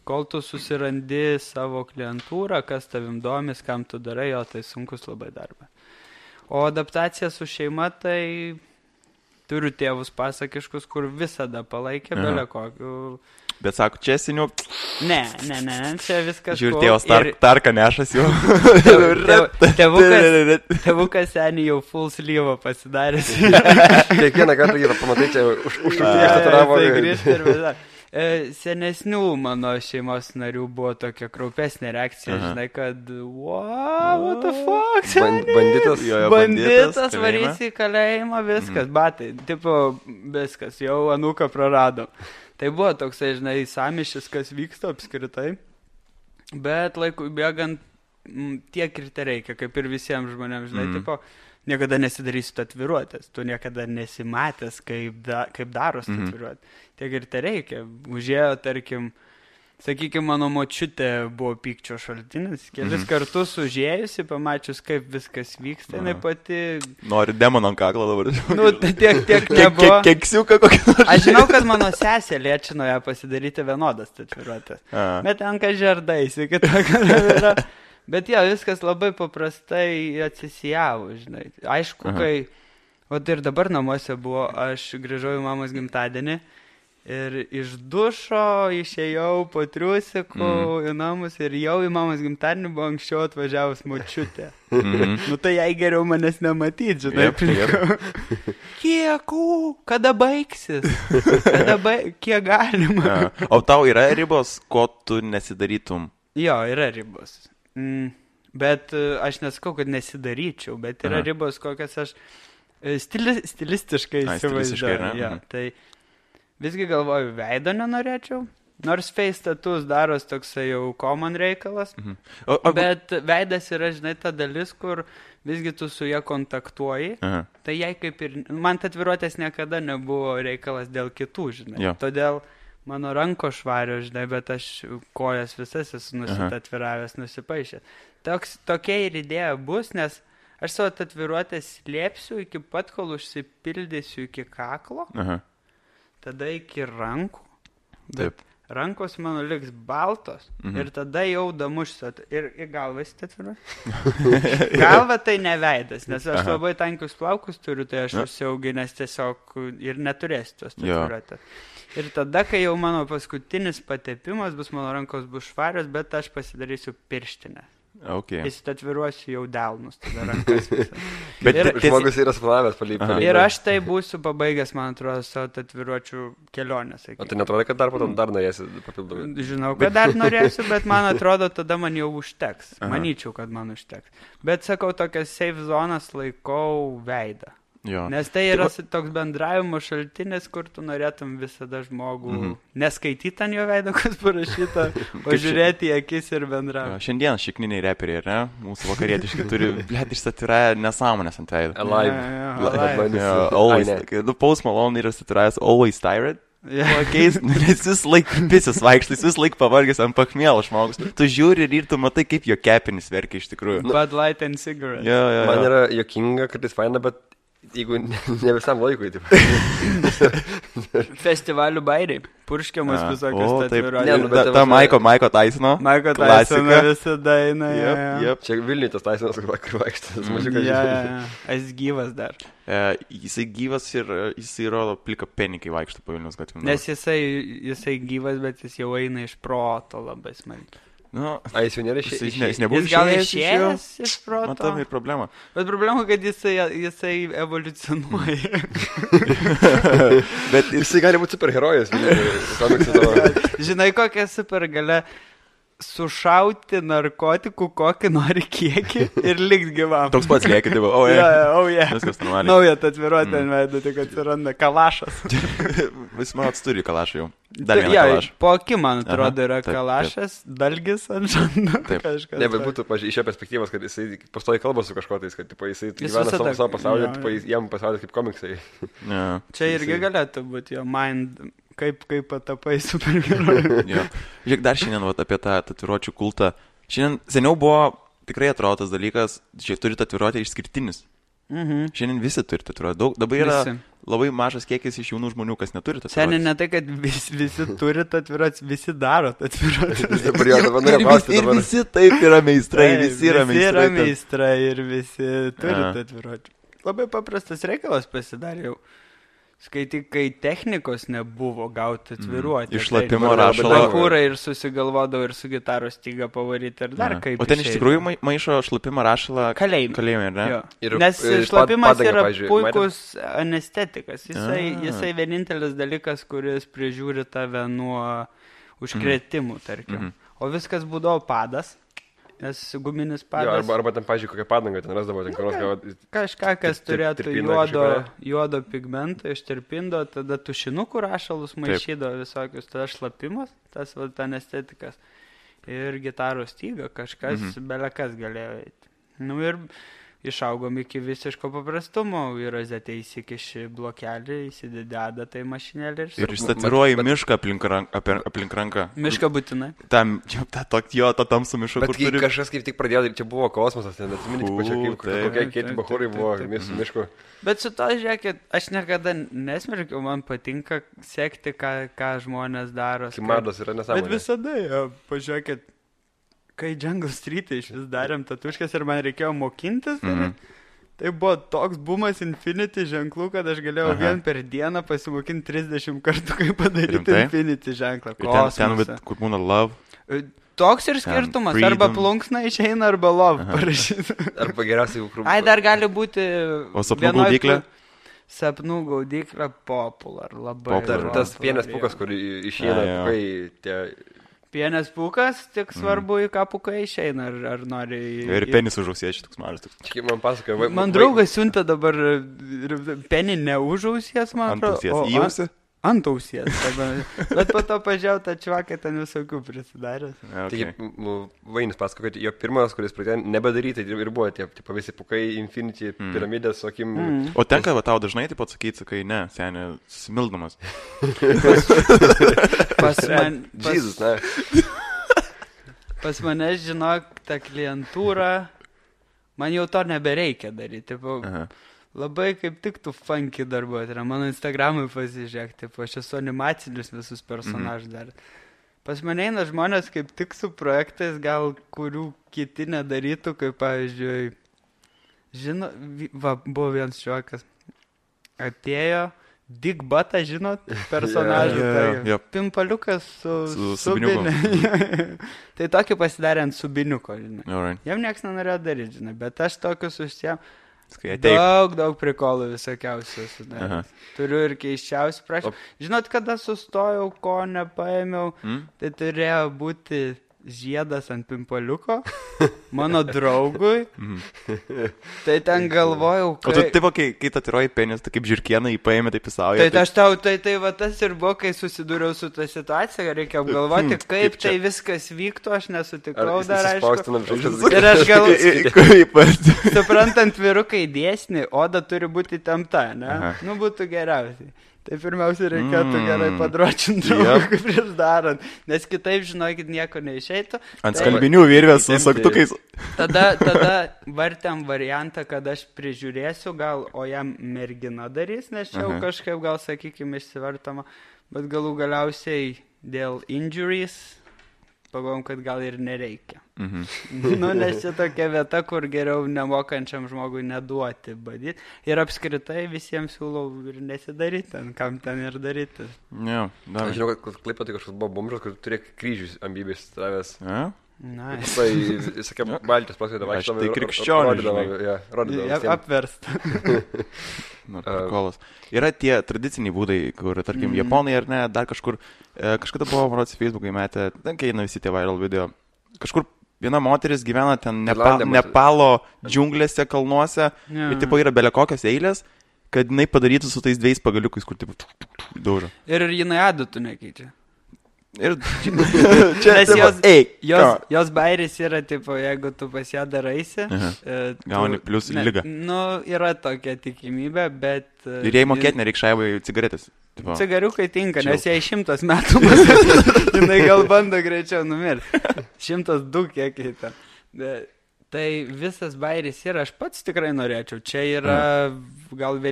kol tu susirandi savo klientūrą, kas tavim domis, kam tu darai, tai sunkus labai darbas. O adaptacija su šeima, tai turiu tėvus pasakiškus, kur visada palaikė belė kokių... Bet sako, čia seniau... Ne, čia viskas... Žiūrė, tėvas tarką nešas jau. Tėvukas seniai jau full sleeve pasidaręs. Kiekvieną kartą jį pamatai, čia užtravo. Senesnių mano šeimos narių buvo tokia kraupesnė reakcija, žinai, kad what the fuck, banditas varys į kalėjimą, viskas, batai, tipo, viskas, jau anūką praradom. Tai buvo toksai, žinai, samišis, kas vyksta apskritai, bet laikui bėgant tiek ir te reikia, kaip ir visiems žmonėms, žinai, tipo, niekada nesidarysiu tatuiruotės, tu niekada nesimatęs, kaip daros tatuiruotės, tiek ir te reikia. Užėjo, tarkim, sakykime, mano močiutė buvo pykčio šaltinis, kelis kartus užėjusi, pamačius, kaip viskas vyksta, jinai pati... Nori demoną ant kaklo dabar. Nu, tiek nebuvo. Keksiuką kokį nors. Aš žinau, kad mano sesė liečino ją pasidaryti vienodas tatuiruotės. Bet tenka žerdaisi, yra. Bet viskas labai paprastai atsisijavo, žinai. Aišku, kai... O ir dabar namuose buvo, aš grįžau į mamos gimtadienį. Ir iš dušo išėjau po triusikų į namus ir jau į mamos gimtadienį buvo anksčiau atvažiavus močiutė. Nu tai jai geriau manęs nematyti, žinai. Kada baigsis? Kiek galima? O tau yra ribos, ko tu nesidarytum? Jo, yra ribos. Bet aš nesakau, kad nesidaryčiau, bet yra ribos, kokias aš stilistiškai įsivaizduoju. Tai visgi galvoju, veido nenorėčiau, nors face tattoos daros toksai jau common reikalas, bet veidas yra, žinai, ta dalis, kur visgi tu su ją kontaktuoji, tai jai kaip ir, man tatuiruotės niekada nebuvo reikalas dėl kitų, žinai, todėl mano ranko švario, žinai, bet aš kojas visas esu nusitatviravęs, nusipaišęs. Tokia ir idėja bus, nes aš savo tatuiruotės slėpsiu iki pat, kol užsipildysiu iki kaklo, tada iki rankų. Taip. rankos mano liks baltos ir tada jau damušsiu ir į galvą įsitatuiruosiu. Galva tai neveidas, nes aš labai tankius plaukus turiu, tai aš užsiauginęs tiesiog ir neturėsiu tos tatuiruotės. Ir tada, kai jau mano paskutinis patepimas bus, mano rankos bus švarios, bet aš pasidarysiu pirštinę. Okay. Įsitatviruosiu jau delnus, tada rankas visą. Bet žmogus yra splanavęs palypti. Ir aš tai būsiu pabaigęs, man atrodo, savo tatuiruočių kelionę. O tai netrodo, kad dar potom dar norėsi papildomai? Žinau, kad dar norėsiu, bet man atrodo, tada man jau užteks. Manyčiau, kad man užteks. Bet sakau, tokias safe zonas laikau veidą. Jo. Nes tai yra toks bendravimo šaltinis, kur tu norėtum visada žmogų neskaityti ant jo veido, kas parašyta, o žiūrėti į akis ir bendrauti. Šiandien šikniniai reperiai, ne? Mūsų vakarietiški turi, blėt, išsatvirąją nesąmonės ant veido. Alive. Post Malone yra statvirąjas Always Tired. Keis, nes vis laik pisis vaikštais, vis laik pavargęs ant pakmėlo žmogus. Tu žiūri ir tu matai, kaip jo kepenis verkia iš tikrųjų. Bud Light and Cigarette. Man yra jokinga, kad jis faina, bet jeigu ne visam laikui, taip. Festivalių bairiai. Purškiamas visokios tatuiruotės. Ta Maiko Tysono. Maiko Tysono visada eina. Čia Vilniuje tas Tysonas, kur vaikštas. Jis gyvas dar. Jisai gyvas ir jisai rodo plika penį, kai vaikšto po Vilniaus gatvėm. Nes jisai gyvas, bet jis jau eina iš proto labai smarkiai. Jis jau nėra išėjęs. Jis gal išėjęs iš proto. Matom ir problema. Bet problema, kad jisai evoliucionuoja. Bet jisai gali būti superherojus. Žinai, kokia supergalia sušauti narkotikų kokį nori kiekį ir likt gyvam. Toks pats lieki, tai va, viskas normaliai. Nauja tatuiruotė ant veido, tik atsiranda kalašas. Vis man turi kalašą jau. Dar vieną kalašą. Po akim, man atrodo, yra kalašas, dalgis ant žando. Ne, bet būtų iš jo perspektyvos, kad jisai pastoji kalba su kažkotais, kad jisai gyvena savo pasaulį, jam pasaulis kaip komiksai. Čia irgi galėtų būti jo mind... Kaip patapai superherojų. Žiūrėk, dar šiandien apie tą tatuiruočių kultą. Šiandien seniau buvo tikrai atrodo tas dalykas, šiaip turi tatuiruotę išskirtinis. Šiandien visi turi tatuiruotę. Dabar yra labai mažas kiekis iš jaunų žmonių, kas neturi tatuiruotės. Šiandien ne tai, kad visi turi tatuiruotės, visi daro tatuiruotės. Ir visi taip yra meistrai, visi yra meistrai ir visi turi tatuiruotės. Labai paprastas reikalas pasidarė jau. Skaityk, kai technikos nebuvo gauti tatuiruotę. Išlapimo rašalo. Bachūrai ir susigalvodavo ir su gitaros styga pavaryti ir dar kaip. O ten iš tikrųjų maišo šlapimo rašalą kalėjime, ne? Nes šlapimas yra puikus anestetikas. Jisai vienintelis dalykas, kuris prižiūri tave nuo užkrėtimų, tarkim. O viskas būdavo padas. Nes guminis padas... Arba ten, pažiūrėjau, kokią padangą ten rasdavo. Kažką, kas turėtų juodo pigmento ištirpindo, tada tušinukų rašalus maišydavo visokius, tada šlapimas, tas anestetikas ir gitaros styga, kažkas, belekas galėjo eiti. Ir išaugom iki visiško paprastumo, į rozetę įsikiši blokelį, įsidededa tai mašinėlį ir išstatiruoji mišką aplink ranką. Mišką būtinai. To tamsų mišką, kur turi. Kažkas kaip tik pradėjo, čia buvo kosmosas, neatsiminti, kokie kiti bachūrai buvo miškų. Bet su to, žiūrėkit, aš niekada nesmerkiau, man patinka sekti, ką žmonės daro. Kimados yra nesąmonė. Bet visada, pažiūrėkit, kai Jungle Street iš vis darėm tatuškas ir man reikėjo mokintis, tai buvo toks bumas Infinity ženklų, kad aš galėjau vien per dieną pasimokinti 30 kartų, kaip padaryti Infinity ženklą. Ten, kur būna love. Toks ir skirtumas, arba plunksna išeina, arba love parašyti. Arba geriausiai jau Ai, dar gali būti... O sapnų gaudyklė? Sapnų gaudyklė popular, labai. Tas vienas pukas, kur išeina, kai tie... Pienės pūkas, tik svarbu į ką pukai išeina, ar nori... Ir penis užausės, toks mažas. Čia man pasakoja... Man draugas siunta dabar penį neužausės, man atrodo. Ant ausies. Bet po to pažiūrėjau, tą čvaką ten visokių prisidaręs. Taigi, Vainis pasako, kad jo pirmas, kuris pradėjo nebedaryti, ir buvo tie visi pukai, Infinity, piramidės, sakim... O tenka tau dažnai taip atsakyti, sakai, ne, senė, smildamas. Pas mane, žinok, ta klientūra, man jau to nebereikia daryti. Labai kaip tik tu funky darbuoti. Mano Instagramui pasižiūrėk, aš esu animacinius visus personažus dar. Pas mane eina žmonės kaip tik su projektais, gal kurių kiti nedarytų, kaip pavyzdžiui, buvo vienas šiokas, atėjo Dick Butą, žinot, personažą, tai pimpaliukas su subiniu. Tai tokį pasidarė ant subiniuko, žinai. Jam nieks nenorėjo daryti, žinai, bet aš tokius užsiėm. Daug prikolų visokiausių sudarė. Turiu ir keiščiausių prašymų. Žinot, kada sustojau, ko nepaėmiau, tai turėjo būti žiedas ant pimpaliuko mano draugui. Tai ten galvojau, O tu taip, kai tatiruoji penis, tai kaip žirkieną įpaėmė, taip įsauja. Tai aš tau, tai va tas ir buvo, kai susidūriau su tą situaciją, reikia apgalvoti, kaip tai viskas vyktų, aš nesutikau dar, aišku. Ir aš galvoju, suprantant vyrukai dėsnį, oda turi būti įtempta, ne? Nu, būtų geriausiai. Tai pirmiausia reikėtų gerai padročinti draugui prieš darant, nes kitaip, žinokit, nieko neišeitų. Ant skalbinių virvės su saktukais. Tada vartėm variantą, kad aš prižiūrėsiu gal, o jam mergina darys, nes čia jau kažkaip gal, sakykime, išsivartama, bet galų galiausiai dėl injuries pagalvom, kad gal ir nereikia. Nu, nes čia tokia vieta, kur geriau nemokančiam žmogui neduoti badyti. Ir apskritai visiems siūlau ir nesidaryti, kam ten ir daryti. Aš žinau, kad Klaipėdoje kažkoks buvo bomžas, kur turėjo kryžius ambybės travęs. Nice. Tai, sakė, Baltijos plaskėdė vaikštavo. Tai krikščionį. Rodydavo. Apversta. Yra tie tradiciniai būdai, kur, tarkim, japonai ar ne, dar kažkur, kažkada buvo, marods, Facebookai metė, ten eina visi tie viral video. Kažkur viena moteris gyvena ten Nepalo džiunglėse, kalnuose, ir tipo yra belekokios eilės, kad jinai padarytų su tais 2 pagaliukais, kur tipo daužo. Ir jinai adatų nekeičia. Ir jos bairis yra, tipo, jeigu tu pas ją daraisi, gauni plius lygą. Nu, yra tokia tikimybė, bet... Ir jei mokėti nereik šaivai cigaretės. Cigariukai tinka, nes jai 100 metų, jinai gal bando greičiau numirti. 102 kiekiai ten. Tai visas bairis yra, aš pats tikrai norėčiau. Čia yra gal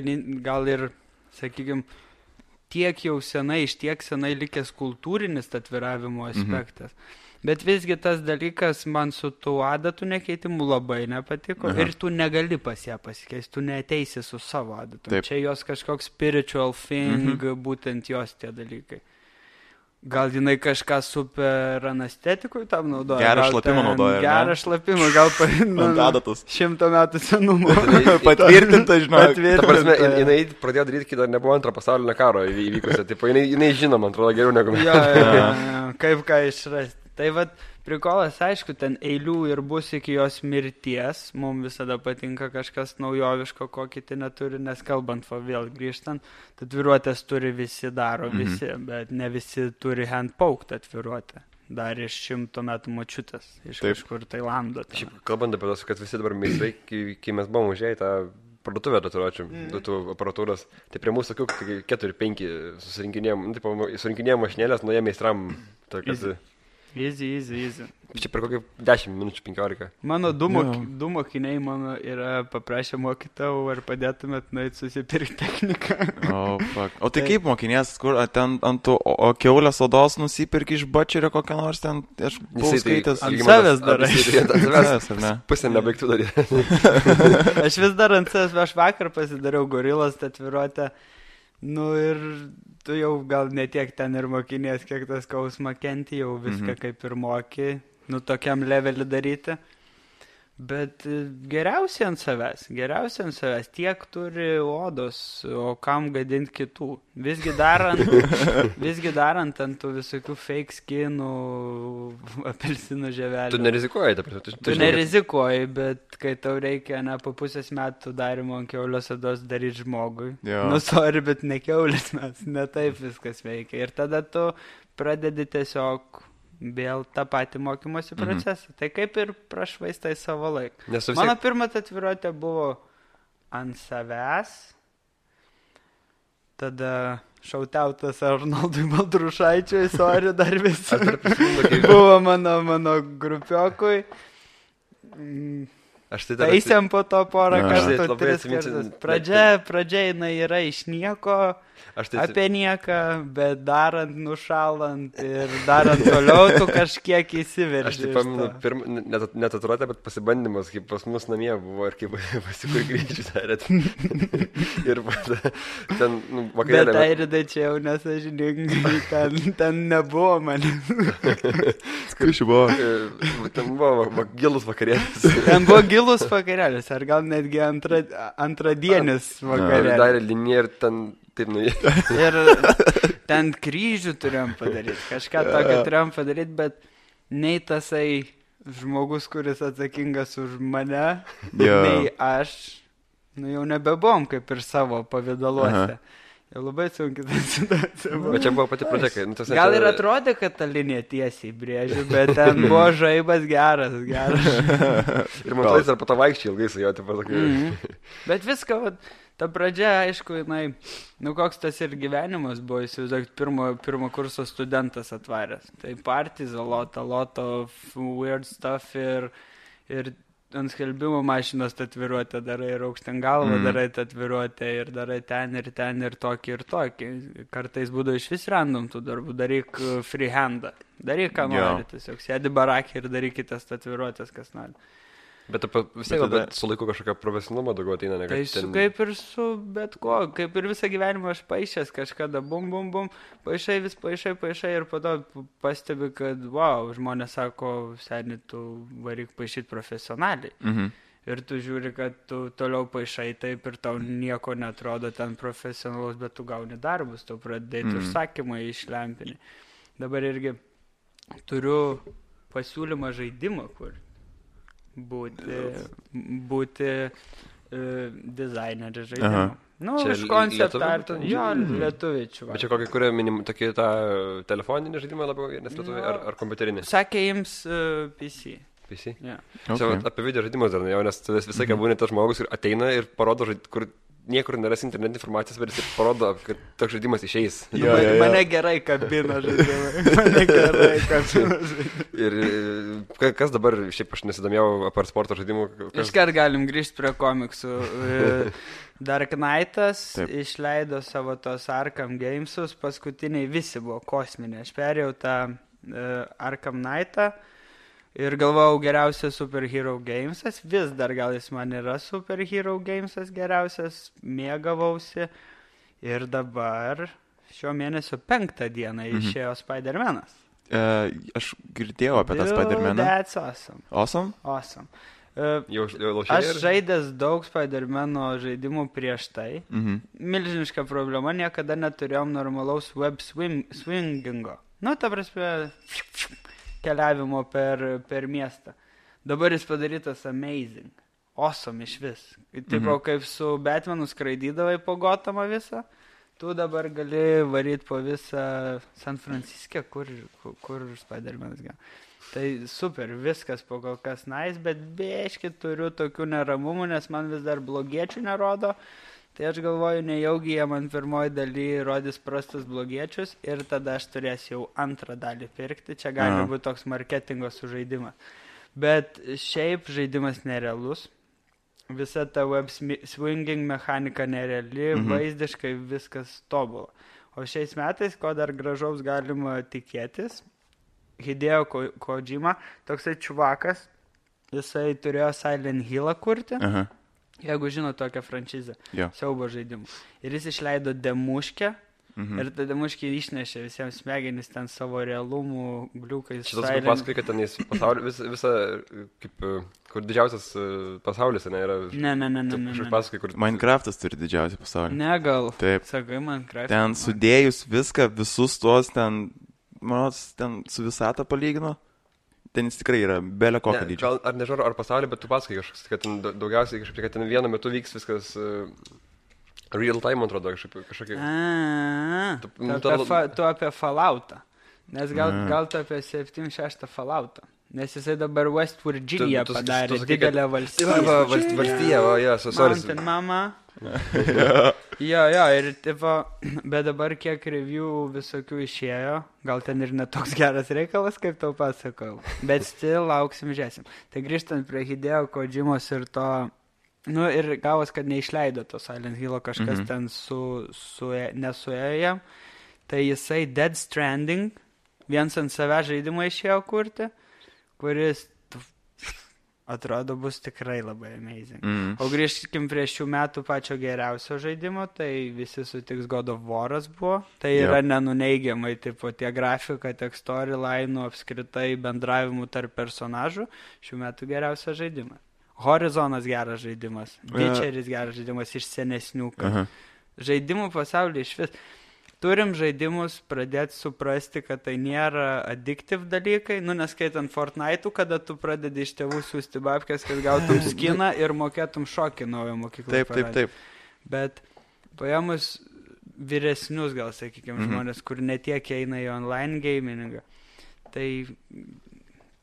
ir, sakykime, tiek jau senai, iš tiek senai likęs kultūrinis atviravimo aspektas. Bet visgi tas dalykas man su tų adatų nekeitimu labai nepatiko. Ir tu negali pas ją pasikeisti, tu neateisi su savo adatom. Čia jos kažkoks spiritual thing, būtent jos tie dalykai. Gal jinai kažką super anestetikui tam naudoja. Gerą šlapimą naudoja. Gerą šlapimą, gal adatos. 100 metų senumo. Patvirtinta, žinau. Ta prasme, jinai pradėjo daryti, kai dar nebuvo antro pasaulinio karo įvykusio. Tipo, jinai žino, man atrodo, geriau negu mes. Kaip ką išrasti. Tai vat, prikolas, aišku, ten eilių ir bus iki jos mirties. Mums visada patinka kažkas naujoviško, ko kiti neturi, nes kalbant, vėl grįžtant, atviruotės turi visi, daro visi, bet ne visi turi handpoked atviruotę. Dar iš 100 metų močiutės, iš kažkur Tailando. Šiaip, kalbant apie tos, kad visi dabar meistrai, kai mes buvom užėję tą parduotuvę tatuiruočių, tų aparatūros, tai prie mūsų tokių 4-5 surinkinėjom mašinėlės, nuo jie meistram tokias... Easy. Čia per kokį 10 minučių 15. Mano du mokiniai mano yra paprašę mokytau, ar padėtumėt nueit susipirkti techniką. O tai kaip mokinės, kur ten ant tų kiaulės odos nusipirki iš bačerio kokią nors ten, aš buvau skaitęs. Ant savęs darai. Ant savęs, ar ne? Pusę nebaigtų daryti. Aš vis dar ant savęs, aš vakar pasidariau gorilos tatuiruotę. Nu ir tu jau gal netiek ten ir mokinės, kiek tas skausmą kenti, jau viską kaip ir moki, nu tokiam levelį daryti. Bet geriausiai ant savęs, tiek turi odos, o kam gadinti kitų. Visgi darant ant tų visokių fake skinų, apelsinų žievelių. Tu nerizikuoji, ta prasme. Tu nerizikuoji, bet kai tau reikia po pusės metų darimo ant kiaulės odos daryti žmogui. Nu, sorry, bet ne kiaulės mes, ne taip viskas veikia. Ir tada tu pradedi tiesiog vėl tą patį mokymosi procesą. Tai kaip ir prašvaistai savo laiką. Mano pirma tatuiruotė buvo ant savęs. Tada šautautas Arnoldui Baltrušaičiui, sorry, dar visi. Buvo mano grupiokui. Aš tai dar... Taisėm po to porą kartų, labai 3 kartus. Pradžia jinai yra iš nieko, apie nieką, bet darant, nušalant ir darant toliau, tu kažkiek įsiverži. Aš tai paminu, net atrodė, bet pasibandymas, kaip pas mus namie buvo ir kaip pasikur grįžti darėt. Ir ten vakarėlė. Bet Airidai čia jau nesažiningai, ten nebuvo mane. Kaip buvo? Ten buvo gilus vakarėlis. Ten buvo gilus vakarėlis, ar gal netgi antradienis vakarėlis. Darė liniją ir ten taip nuėjo. Ir ten kryžių turėjom padaryti, kažką tokio turėjom padaryti, bet nei tasai žmogus, kuris atsakingas už mane, nei aš, jau nebebuvom kaip ir savo pavidaluose. Jau labai sunkiai tą situaciją. Bet čia buvo pati pradžia, kai... Gal ir atrodė, kad ta linija tiesiai brėžiu, bet ten buvo žaibas geras. Ir man tais ar po to vaikščiai ilgai su jo, taip pasakai. Bet viską, ta pradžia, aišku, koks tas ir gyvenimas buvo, įsivaizduok, pirmo kurso studentas atvaręs. Tai parties, a lot of weird stuff ir ant skelbimo mašinos tatuiruotę darai ir aukštyn galvą darai tatuiruotę ir darai ten ir tokį. Kartais būdavo iš vis random tų darbų, daryk freehandą, daryk ką nori, tiesiog sėdi barakį ir darykitės tatuiruotės, kas nori. Bet vis tiek su laiku kažkokia profesionalumo daugiau ateina, tai kaip ir su bet ko, kaip ir visą gyvenimą aš paišęs kažkada, bum, paišai ir po to pastebi, kad, wow, žmonės sako, seni, tu varyk paišyti profesionaliai. Ir tu žiūri, kad tu toliau paišai taip ir tau nieko netrodo ten profesionalus, bet tu gauni darbus, tu pradėti užsakymą iš lempinį. Dabar irgi turiu pasiūlymą žaidimą, kur būti dizaineris žaidimų. Iš konceptą. Jo, lietuvičių. Bet čia kokį kuria tokį tą telefoninį žaidimą labiau, nes lietuviai, ar kompiuterinį? Sakė jums PC. PC? Yeah. Čia apie video žaidimus dar jau, nes visai ką būni tas žmogus ir ateina ir parodo, kur niekur neras internetinė informacijos, bet jis parodo, kad toks žaidimas išeis. Mane gerai kabina žaidimai. Ir kas dabar, šiaip aš nesidomėjau apart sporto žaidimų. Iškart galim grįžti prie komiksų. Dark Knightas išleido savo tos Arkham Gamesus, paskutiniai visi buvo kosminiai. Aš perėjau tą Arkham Knightą. Ir galvojau, geriausias Superhero Gamesas, vis dar gal jis man yra Superhero Gamesas geriausias, mėgavausi. Ir dabar šio mėnesio 5 dieną išėjo Spider-Manas. Aš girdėjau apie tą Spider-Maną. That's awesome. Awesome? Aš žaidęs daug Spider-Mano žaidimų prieš tai. Milžiniška problema, niekada neturėjom normalaus web swingingo. Ta prasme... keliavimo per miestą. Dabar jis padarytas amazing. Awesome iš vis. Tipo, kaip su Batmanu skraidydavai po Gotamą visą, tu dabar gali varyti po visą San Franciskę, kur Spider-Manas gal. Tai super, viskas po kol kas nice, bet biški turiu tokių neramumų, nes man vis dar blogiečių nerodo. Tai aš galvoju, nejaugi jie man pirmoji daly rodys prastus blogiečius ir tada aš turėsiu jau antrą dalį pirkti. Čia gali būti toks marketingo sužaidimas. Bet šiaip žaidimas nerealus. Visa ta web swinging mechanika nereali, vaizdiškai viskas tobula. O šiais metais, ko dar gražaus galima tikėtis, Hideo Kojima, toksai čuvakas, jisai turėjo Silent Hill'ą kurti. Jeigu žino tokią franšizę, siaubo žaidimų. Ir jis išleido demuškę, ir ta demuškė išnešė visiems smegenis ten savo realumų, gliukais. Šitas kaip pasakai, kad ten visą, kaip, kur didžiausias pasaulis, ne, yra... Ne. Pasakai, kur... Minecraftas turi didžiausią pasaulį. Ne, gal. Taip. Sakai, Minecraft. Ten sudėjus viską, visus tuos ten, ten su visatą palygino. Ten jis tikrai yra belio kokio dydžio. Ar nežinau, ar pasaulį, bet tu pasakai kažkas, kad ten daugiausiai kažkaip, kad ten vienu metu vyks viskas real time, man atrodo, kažkokie... Tu apie Falloutą. Nes gal tu apie 7-6 Falloutą. Nes jisai dabar West Virginia padarė didelę valstiją. Valstiją, sorry. Mountain Mama. Jo, ir tipo, bet dabar kiek review visokių išėjo, gal ten ir netoks geras reikalas, kaip tau pasakau, bet still lauksim, žiūrėsim. Tai grįžtant prie Hideo Kojimos ir to, ir gavos, kad neišleido to Silent Hillo, kažkas ten nesuėjo jam, tai jisai Dead Stranding, viens ant save žaidimą išėjo kurti, kuris atrodo bus tikrai labai amazing. O grįžkim prie šių metų pačio geriausio žaidimo, tai visi sutiks God of War'as buvo. Tai yra nenuneigiamai, tipo, tie grafika, tiek storyline'ų, apskritai bendravimų tarp personažų. Šių metų geriausias žaidimas. Horizonas geras žaidimas. Witcheris geras žaidimas iš senesnių. Žaidimų pasaulyje iš vis. Turim žaidimus pradėti suprasti, kad tai nėra addictive dalykai, neskaitant Fortnite'ų, kada tu pradedi iš tėvų siūsti babkės, kad gautum skiną ir mokėtum šokį naujo mokyklą. Taip. Bet paėmus vyresnius, gal sakykime, žmonės, kur netiek eina į online gamingą, tai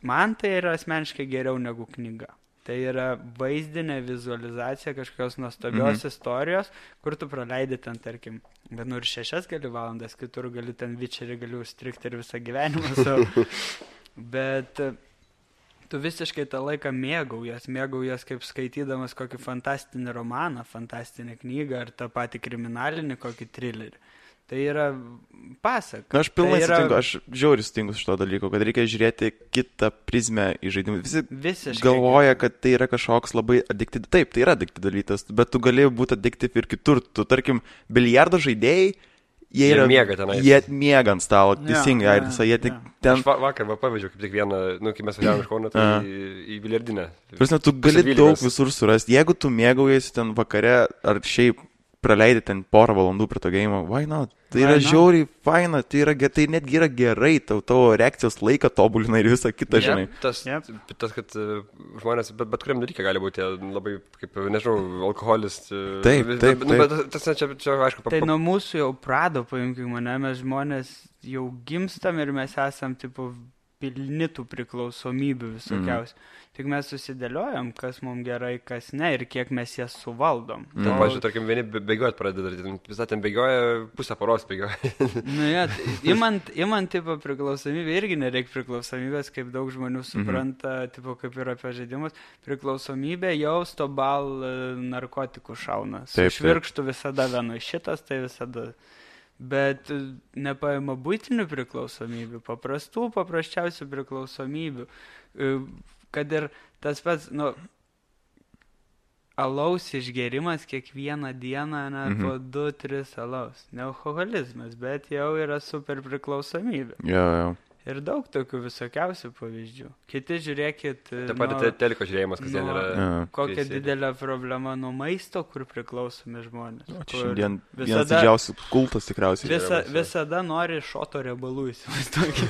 man tai yra asmeniškai geriau negu knyga. Tai yra vaizdinė vizualizacija kažkokios nuostabios istorijos, kur tu praleidi ten, tarkim, ir 6 gali valandas, kitur gali ten Witcherį gali užstrikti ir visą gyvenimą savo. Bet tu visiškai tą laiką mėgaujas kaip skaitydamas kokį fantastinį romaną, fantastinę knygą ar tą patį kriminalinį kokį trilerį. Tai yra pasaka. Aš pilnai sutinku, aš žiauriai sutinku šito dalyko, kad reikia žiūrėti kitą prizmę į žaidimus. Visi galvoja, kad tai yra kažkoks labai addictive. Taip, tai yra addictive dalykas, bet tu gali būti addictive ir kitur. Tu, tarkim, biliardo žaidėjai, jie miega ant stalo, teisingai, jie tik ten... Aš vakar pavyzdžiui, kaip tik vieną, kai mes važiavome iš Kauno, tai į biliardinę. Prasme, tu gali daug visur surasti. Jeigu tu mėgaujasi ten vakare ar šiaip praleidai ten porą valandų prie to game, why not? Tai yra žiauriai faina, tai netgi yra gerai, tavo reakcijos laiką tobulina ir visą kitą, žinai. Tas, kad žmonės, bet kuriam dalykai gali būti labai, kaip, nežinau, alkoholis. Taip. Bet tas čia aišku. Tai nuo mūsų jau prado, paimkime mane, mes žmonės jau gimstam ir mes esam, tipo, pilni tų priklausomybių visokiausių. Tik mes susidėliojam, kas mums gerai, kas ne ir kiek mes jas suvaldom. Tai, pažiūrėjau, tarkim, vieni bėgiojat pradeda, visą ten bėgioja, pusę paros bėgioja. Imant tipo priklausomybę, irgi nereikia priklausomybės, kaip daug žmonių supranta, tipo, kaip yra apie žaidimus. Priklausomybė jau stobal narkotikų šauna. Su švirkštu visada vienu šitas, tai visada... Bet nepaima būtinių priklausomybių, paprasčiausių priklausomybių, kad ir tas pats, alaus išgerimas kiekvieną dieną, po 2-3 alaus. Ne alkoholizmas, bet jau yra super priklausomybė. Jo. Ir daug tokių visokiausių pavyzdžių. Kiti žiūrėkit... Taip pat teliko žiūrėjimas kasdien yra... Kokia didelė problema nuo maisto, kur priklausomi žmonės. Šiandien vienas didžiausių kultas tikriausiai. Visada nori šoto riebalų įsivaizduoti.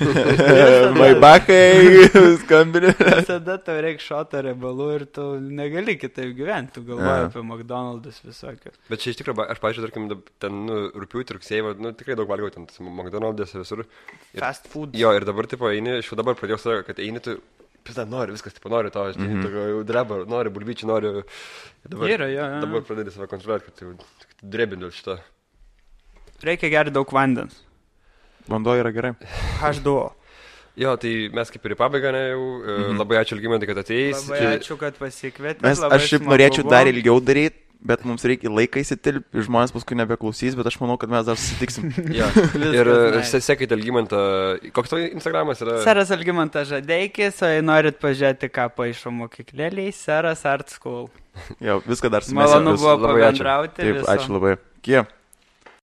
Maibakai, skambinė. Visada tau reikia šoto riebalų ir tu negali kitaip gyventi. Tu galvoji apie McDonald's visokius. Bet čia iš tikrųjų, aš pažiūrėjau, tarkim, ten rugpjūtį, rugsėjį, tikrai daug valgiau ten McDonald's visur. Fast food. Jo, ir dabar, tipo, eini, aš jau dabar pradėjau savo, kad eini, tu, pizda, nori, viskas, tipo, nori to, aš tokio dreba, nori bulvyčių, nori... Dabar pradėjau save kontroliuoti, kad tu drebindu šitą. Reikia gerti daug vandens. Vanduo yra gerai. H2O. Jo, tai mes kaip ir į pabaigą, labai ačiū Algimantai, kad atėjai. Labai ačiū, kad pasikvietė. Aš šiaip norėčiau dar ilgiau daryti. Bet mums reikia laiką įsitilpti, žmonės paskui nebeklausys, bet aš manau, kad mes dar susitiksim. Ir sekite Algimantą, koks tavo Instagramas yra? Seras Algimantas Žadeikis, o jei norit pažiūrėti, ką paišo mokyklėliai, Seras Art School. Jo, viską dar sumėsiu. Malonu buvo pabendrauti. Taip, ačiū labai. Kie.